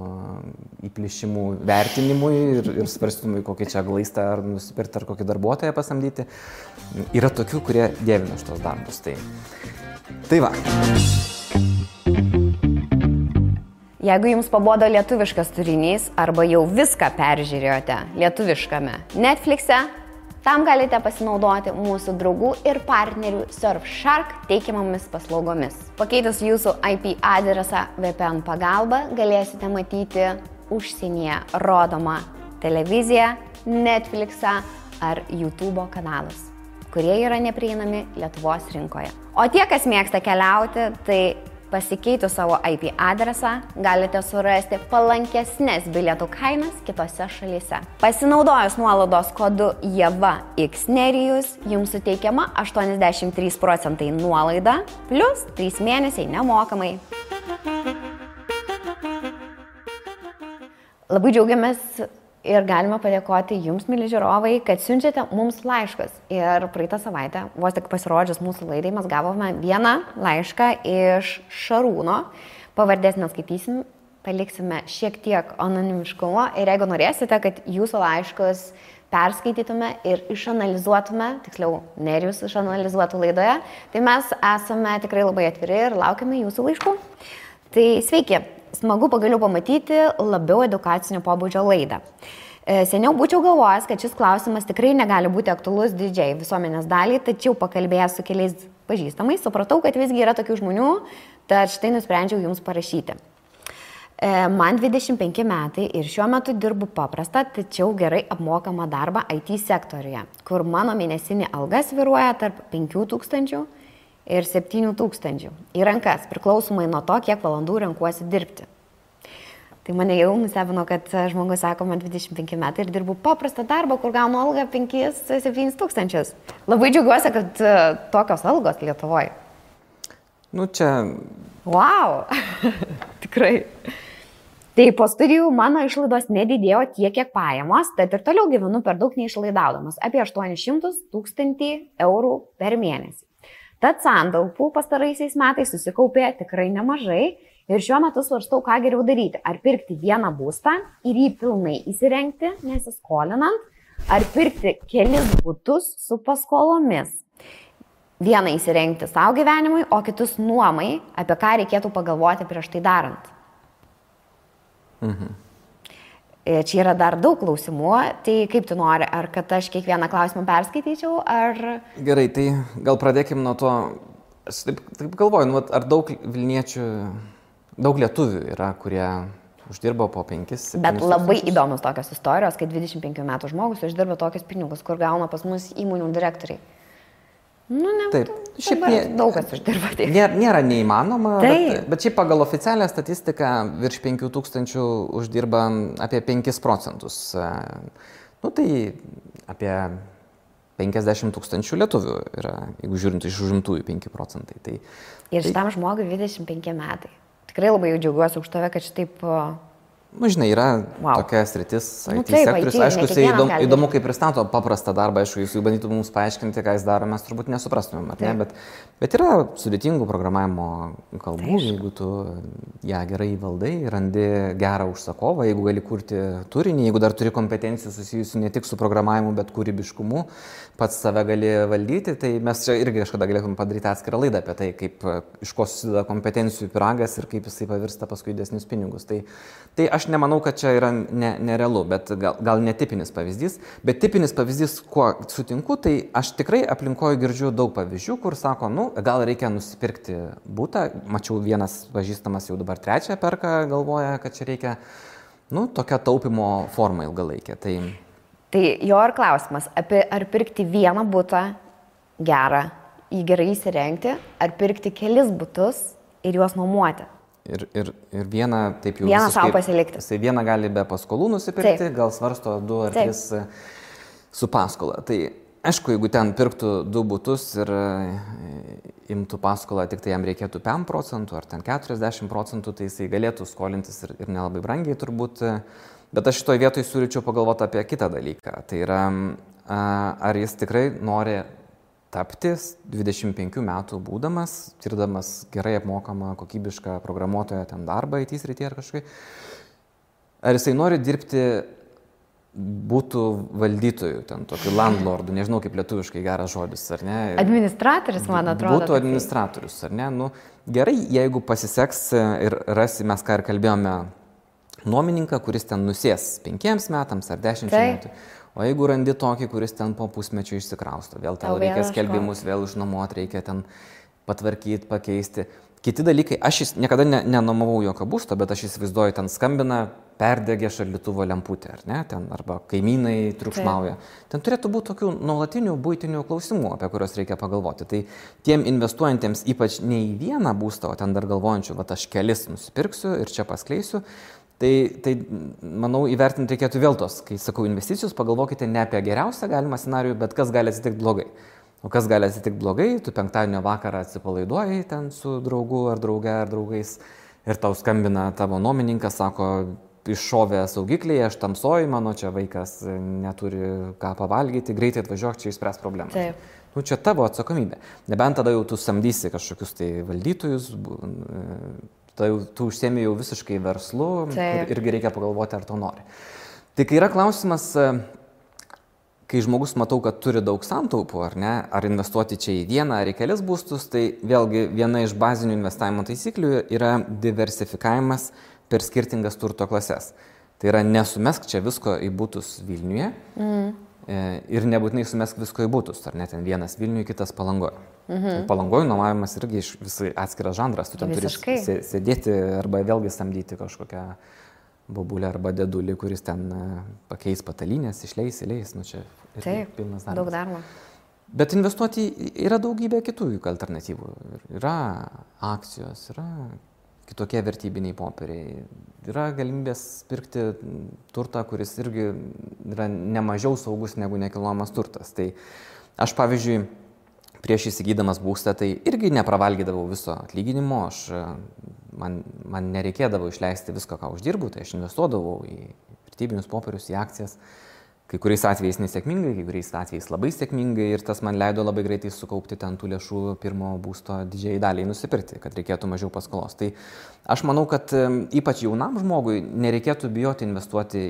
įplišimų vertinimui ir svarstymui, kokį čia glaistą ar nusipirkti ar kokį darbuotoją pasamdyti. Yra tokių, kurie dievina šitos darbus. Tai va. Jeigu jums pabodo lietuviškas turinys arba jau viską peržiūrėjote lietuviškame Netflix'e, tam galite pasinaudoti mūsų draugų ir partnerių Surfshark teikiamomis paslaugomis. Pakeitus jūsų IP adresą VPN pagalba galėsite matyti užsienyje rodomą televiziją, Netflix'ą ar YouTube kanalus, kurie yra neprieinami Lietuvos rinkoje. O tie, kas mėgsta keliauti, tai pasikeitus savo IP adresą galite surasti palankesnės bilietų kainas kitose šalyse. Pasinaudojus nuolaidos kodu JEVAXNERIJUS jums suteikiama 83% nuolaida plus 3 mėnesiai nemokamai. Labai džiaugiamės ir galime padėkoti jums, mili žiūrovai, kad siunčiate mums laiškus. Ir praeitą savaitę, vos tik pasirodžius mūsų laidai, mes gavome vieną laišką iš Šarūno. Pavardės neskaitysim, paliksime šiek tiek anonimiškumo. Ir jeigu norėsite, kad jūsų laiškus perskaitytume ir išanalizuotume, tiksliau, Nerijus išanalizuotų laidoje, tai mes esame tikrai labai atviri ir laukiame jūsų laiškų. Tai sveiki! Smagu pagaliau pamatyti labiau edukacinio pobūdžio laidą. Seniau būčiau galvojęs, kad šis klausimas tikrai negali būti aktualus didžiai visuomenės daliai, tačiau pakalbėjęs su keliais pažįstamais, supratau, kad visgi yra tokių žmonių, tad štai nusprendžiau jums parašyti. Man 25 metai ir šiuo metu dirbu paprastą, tačiau gerai apmokamą darbą IT sektoriuje, kur mano mėnesinė alga svyruoja tarp 5000 ir 7000 į rankas, priklausomai nuo to, kiek valandų renkuosi dirbti. Tai mane jau nustebino, kad žmogus sako, man 25 metai ir dirbu paprastą darbą, kur gaunu algą 5-7 tūkstančius. Labai džiaugiuosi, kad tokios algos Lietuvoje. Nu, čia... Wow! Tikrai. Tai po studijų mano išlaidos nedidėjo tiek, kiek pajamos, tad ir toliau gyvenu per daug neišlaidaudamas, apie 800-1000 eurų per mėnesį. Tad santaupų pastaraisiais metais susikaupė tikrai nemažai ir šiuo metu svarstau, ką geriau daryti. Ar pirkti vieną būstą ir jį pilnai įsirengti, nesiskolinant, ar pirkti kelis butus su paskolomis. Vieną įsirengti savo gyvenimui, o kitus nuomai, apie ką reikėtų pagalvoti prieš tai darant. Čia yra dar daug klausimų, tai kaip tu nori, ar kad aš kiekvieną klausimą perskaityčiau, ar... Gerai, tai gal pradėkim nuo to, aš taip galvoju, nu, ar daug Vilniečių, daug lietuvių yra, kurie uždirba po 5-7 Bet labai įdomus tokios istorijos, kai 25 metų žmogus uždirba tokius pinigus, kur gauna pas mus įmonių direktoriai. Nu, ne, taip, šiaip daug kas uždirba tiek. Nėra neįmanoma, bet šiaip pagal oficialią statistiką virš 5000 uždirba apie 5%. Nu, tai apie 50 000 lietuvių yra, jeigu žiūrint iš užimtųjų 5%. Tai, ir šitam žmogui 25 metai. Tikrai labai jau džiaugiuosi už tave, kad šitaip... Nu, žinai, yra tokia sritis, IT sektorius. Aišku, jisai įdomu, kaip pristato paprastą darbą, aišku, jis jau bandytų mums paaiškinti, ką jis daro, mes turbūt nesuprastumėm, ar ne, bet yra sudėtingų programavimo kalbų, jeigu tu ją gerai valdai, randi gerą užsakovą, jeigu gali kurti turinį, jeigu dar turi kompetencijų susijusių ne tik su programavimu, bet kūrybiškumu, pats save gali valdyti, tai mes čia irgi kažkada galėtume padaryti atskirą laidą apie tai, kaip iš ko susideda kompetencijų pyragas ir kaip jisai pavirsta paskui didesnius pinigus. Tai aš nemanau, kad čia yra nerealu, bet gal netipinis pavyzdys. Bet tipinis pavyzdys, kuo sutinku, tai aš tikrai aplinkoje girdžiu daug pavyzdžių, kur sako, nu, gal reikia nusipirkti butą. Mačiau, vienas pažįstamas jau dabar 3 perka, galvoja, kad čia reikia, nu, tokia taupimo forma ilgalaikė. Tai jo ir klausimas, ar pirkti vieną butą gerą, jį gerai įsirengti, ar pirkti kelis butus ir juos nuomuoti. Ir vieną taip jau vieną savo pasilikti. Jisai vieną gali be paskolų nusipirkti, gal svarsto 2 ar 3 su paskola. Tai aišku, jeigu ten pirktų 2 butus ir imtų paskolą, tik tai jam reikėtų 5% ar ten 40%, tai jisai galėtų skolintis ir nelabai brangiai turbūt. Bet aš šitoj vietoj siūlyčiau pagalvoti apie kitą dalyką. Tai yra, ar jis tikrai nori tapti 25 metų būdamas, tirdamas gerai apmokamą, kokybišką programuotoją ten darbą IT srityje ar kažkai. Ar jisai nori dirbti būtų valdytojų, ten tokių landlordų, nežinau kaip lietuviškai geras žodis, ar ne? Administratorius, man atrodo. Būtų administratorius, ar ne? Nu, gerai, jeigu pasiseks ir rasi, mes ką ir kalbėjome, nuomininką, kuris ten nusės 5 metams ar 10 metų. O jeigu randi tokį, kuris ten po pusmečio išsikrausto, vėl tau reikia skelbimus, vėl išnuomoti, reikia ten patvarkyti, pakeisti. Kiti dalykai, aš niekada nenuomavau jokio būsto, bet aš įsivaizduoju, ten skambina, perdegė šaldytuvo lemputė, ar ne, ten, arba kaimynai triukšmauja. Ten turėtų būti tokių nuolatinių buitinių klausimų, apie kuriuos reikia pagalvoti. Tai tiem investuojantiems ypač ne į vieną būstą, o ten dar galvojančių, va aš kelis nusipirksiu ir čia paskleisiu, tai manau, įvertinti reikėtų vėl tos, kai sakau investicijos, pagalvokite ne apie geriausią galimą scenarijų, bet kas gali atsitikti blogai. O kas gali atsitikti blogai, tu penktadienio vakarą atsipalaiduoji ten su draugu ar drauge ar draugais ir tau skambina tavo nuomininkas, sako, iššovė saugikliai, aš tamsoju, mano čia vaikas neturi ką pavalgyti, greitai atvažiuok, čia išspręs problemą. Taip. Nu, čia tavo atsakomybė. Nebent tada jau tu samdysi kažkokius tai valdytojus, tu užsiemi jau visiškai verslu ir irgi reikia pagalvoti, ar to nori. Tai kai yra klausimas, kai žmogus matau, kad turi daug santaupų, ar ne, ar investuoti čia į vieną ar į kelis būstus, tai vėlgi viena iš bazinių investavimo taisyklių yra diversifikavimas per skirtingas turto klases. Tai yra nesumesk čia visko į butus Vilniuje ir nebūtinai sumesk visko į butus, ar ne, ten vienas Vilniuje, kitas Palangoje. Palangoje nuomavimas irgi visai atskiras žanras, tu ten turi sėdėti arba vėlgi samdyti kažkokią bobulę arba dėdulį, kuris ten pakeis patalynės, išleis, nu čia pilnas darbas. Daug darbo. Bet investuoti yra daugybė kitų alternatyvų. Yra akcijos, yra kitokie vertybiniai popieriai. Yra galimybės pirkti turtą, kuris irgi yra nemažiau saugus negu nekilnojamas turtas. Tai aš, pavyzdžiui, prieš įsigydamas būstą, tai irgi nepravalgydavau viso atlyginimo, man nereikėdavo išleisti visko, ką uždirbu, tai aš investuodavau į vertybinius popierius, į akcijas. Kai kuriais atvejais nesėkmingai, kai kuriais atvejais labai sėkmingai ir tas man leido labai greitai sukaupti ten tų lėšų pirmo būsto didžiai daliai nusipirkti, kad reikėtų mažiau paskolos. Tai aš manau, kad ypač jaunam žmogui nereikėtų bijoti investuoti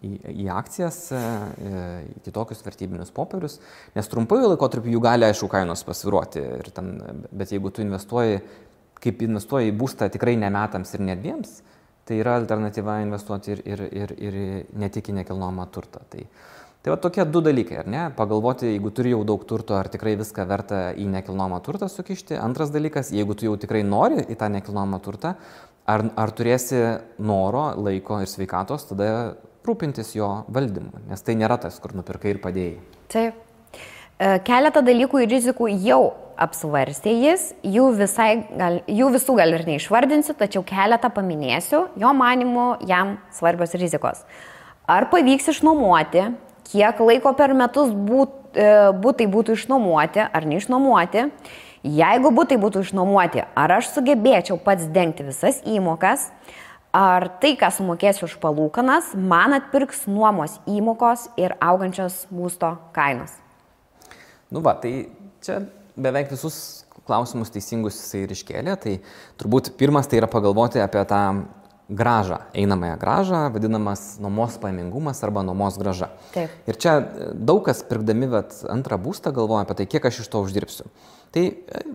į akcijas, į kitokius vertybinius popierius, nes trumpųjų laikotarpių jų gali, aišku, kainos pasviruoti. Bet jeigu tu investuoji į būstą tikrai ne metams ir ne 2, tai yra alternatyva investuoti ir ne tik į nekilnojamą turtą. Tai va tokie 2 dalykai, ar ne? Pagalvoti, jeigu turi jau daug turto, ar tikrai viską verta į nekilnojamą turtą sukišti. Antras dalykas, jeigu tu jau tikrai nori į tą nekilnojamą turtą, ar turėsi noro, laiko ir sveikatos, tada rūpintis jo valdymu, nes tai nėra tas, kur nupirkai ir padėjai. Taip. Keletą dalykų ir rizikų jau apsvarstė jis, jų visų gal ir neišvardinsiu, tačiau keletą paminėsiu, jo manimu jam svarbios rizikos. Ar pavyks išnuomoti, kiek laiko per metus būtai būtų išnuomoti ar neišnuomoti, jeigu būtai būtų išnuomoti, ar aš sugebėčiau pats dengti visas įmokas, ar tai, ką sumokėsiu už palūkanas, man atpirks nuomos įmokos ir augančios būsto kainos. Tai čia beveik visus klausimus teisingus jisai ir iškėlė, tai turbūt pirmas tai yra pagalvoti apie tą grąžą, einamąją grąžą, vadinamas nuomos pajamingumas arba nuomos grąža. Taip. Ir čia daug kas pirkdami antrą būstą galvoja apie tai, kiek aš iš to uždirbsiu. Tai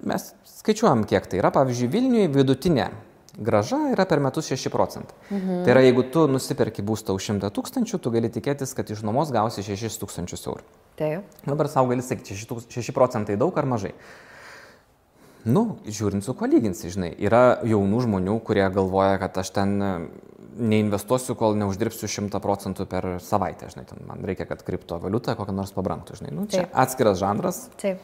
mes skaičiuojam, kiek tai yra. Pavyzdžiui, Vilniuje vidutinė grąža yra per metus 6%. Tai yra, jeigu tu nusiperki būstą už 100 000, tu gali tikėtis, kad iš nuomos gausi 6 000 eurų. Taip. Dabar savo gali sakyti, 6% daug ar mažai. Žiūrint su kuo lyginsi, žinai. Yra jaunų žmonių, kurie galvoja, kad aš ten neinvestuosiu, kol neuždirbsiu 100% per savaitę, žinai. Man reikia, kad kriptovaliuta kokią nors pabrangtų, žinai. Čia atskiras žanras. Taip.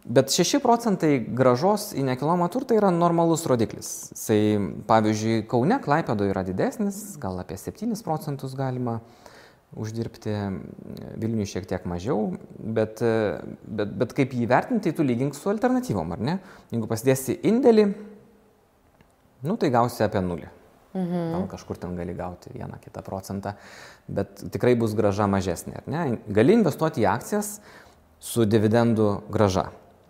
Bet 6% grąžos į nekilnojamą turtą yra normalus rodiklis. Pavyzdžiui, Kaune, Klaipėdoje yra didesnis, gal apie 7% galima uždirbti, Vilniuje šiek tiek mažiau, bet kaip jį vertinti, tu lygink su alternatyvom, ar ne? Jeigu pasidėsi indėlį, tai gausi apie 0. Gal kažkur ten gali gauti 1-2%, bet tikrai bus grąža mažesnė, ar ne? Gali investuoti į akcijas su dividendų grąža.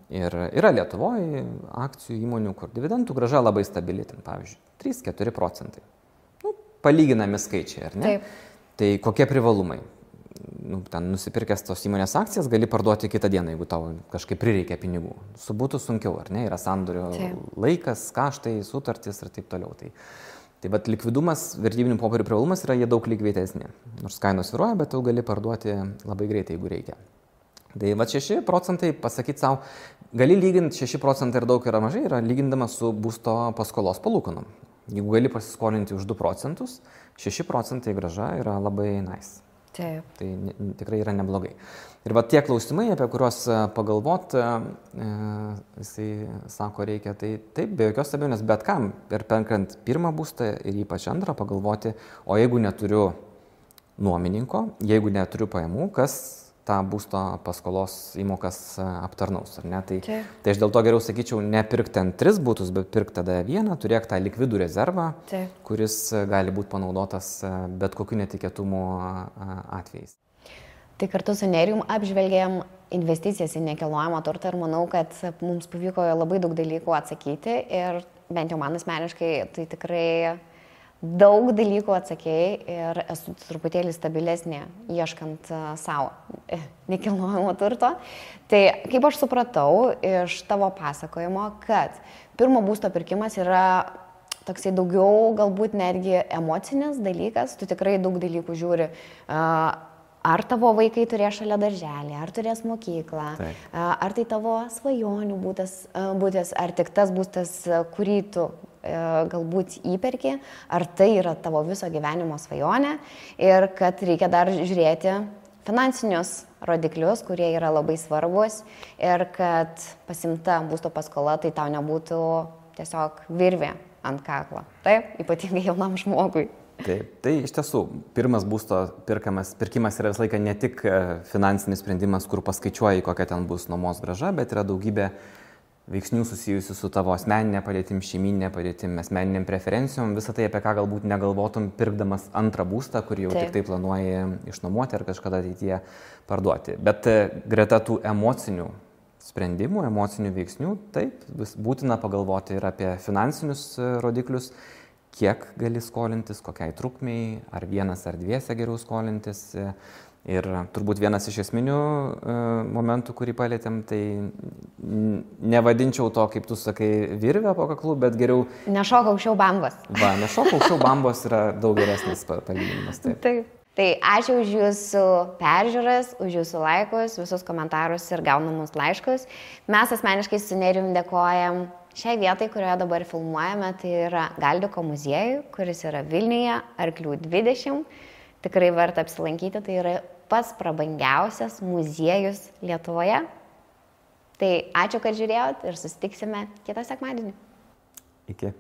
Ir yra Lietuvoje akcijų įmonių, kur dividendų grąža labai stabili, ten, pavyzdžiui, 3-4%. Palyginami skaičiai, ar ne? Taip. Tai kokie privalumai? Ten nusipirkęs tos įmonės akcijas gali parduoti kitą dieną, jeigu tau kažkaip prireikia pinigų. Su būtų sunkiau, ar ne? Yra sandorio laikas, kaštai, sutartys ir taip toliau. Tai likvidumas, vertybinių popierių privalumas yra jie daug likvidesni. Nors kainos svyruoja, bet tu gali parduoti labai greitai, jeigu reikia. Tai 6% pasakyti savo, gali lyginti 6% ir daug yra mažai, yra lygindamas su būsto paskolos palūkanom. Jeigu gali pasiskolinti už 2%, 6% grąža yra labai nice. Taip. Tai tikrai yra neblogai. Ir tie klausimai, apie kuriuos pagalvot, jisai sako, reikia, tai taip, be jokios abejonės, bet kam, ir perkant pirmą būstą ir ypač antrą, pagalvoti, o jeigu neturiu nuomininko, jeigu neturiu pajamų, kas tą būsto paskolos įmokas aptarnaus, ar ne? Tai aš dėl to geriau sakyčiau, nepirk ten 3 būtus, bet pirk tada 1, turėk tą likvidų rezervą, kuris gali būti panaudotas bet kokiu netikėtumo atvejais. Tai kartu su Nerijum apžvelgėm investicijas į nekilnojamą turtą ir manau, kad mums pavyko labai daug dalykų atsakyti ir bent jau man asmeniškai tai tikrai daug dalykų atsakėjai ir esu truputėlį stabilesnė ieškant savo nekilnojamo turto. Tai kaip aš supratau iš tavo pasakojimo, kad pirmo būsto pirkimas yra toksai daugiau galbūt netgi emocinis dalykas, tu tikrai daug dalykų žiūri, ar tavo vaikai turės šalia darželį, ar turės mokyklą, ar tai tavo svajonių būtas, ar tik tas būstas, kurį tu galbūt įperki, ar tai yra tavo viso gyvenimo svajonė ir kad reikia dar žiūrėti finansinius rodiklius, kurie yra labai svarbus ir kad pasimta būsto paskola tai tau nebūtų tiesiog virvė ant kaklo. Taip, ypatingai jaunam žmogui. Taip, tai iš tiesų, pirmas būsto pirkimas yra visą laiką ne tik finansinis sprendimas, kur paskaičiuoji, kokia ten bus nuomos grąža, bet yra daugybė veiksnių susijusių su tavo asmeninė padėtim, šeiminė padėtim, asmeniniam preferencijom, visą tai, apie ką galbūt negalvotum pirkdamas antrą būstą, kurį jau tik tai planuoji išnuomoti ar kažkada ateityje parduoti. Bet greta tų emocinių sprendimų, emocinių veiksnių, taip, būtina pagalvoti ir apie finansinius rodiklius, kiek gali skolintis, kokiai trukmei, ar vienas ar dviese geriau skolintis. Ir turbūt vienas iš esminių momentų, kurį palėtėm, tai nevadinčiau to, kaip tu sakai, virvę po kaklu, bet geriau... Nešok aukščiau bambos. Va, nešok aukščiau bambos yra daug geresnis palyginimas. Taip. Tai ačiū už jūsų peržiūras, už jūsų laikus, visus komentarus ir gaunamus laiškus. Mes asmeniškai su Nerijum dėkojam šiai vietai, kurioje dabar filmuojame, tai yra Galdiko muziejui, kuris yra Vilniuje, Arklių 20. Tikrai verta apsilankyti, tai yra pats prabangiausias muziejus Lietuvoje. Tai ačiū, kad žiūrėjot ir susitiksime kitą sekmadienį. Iki.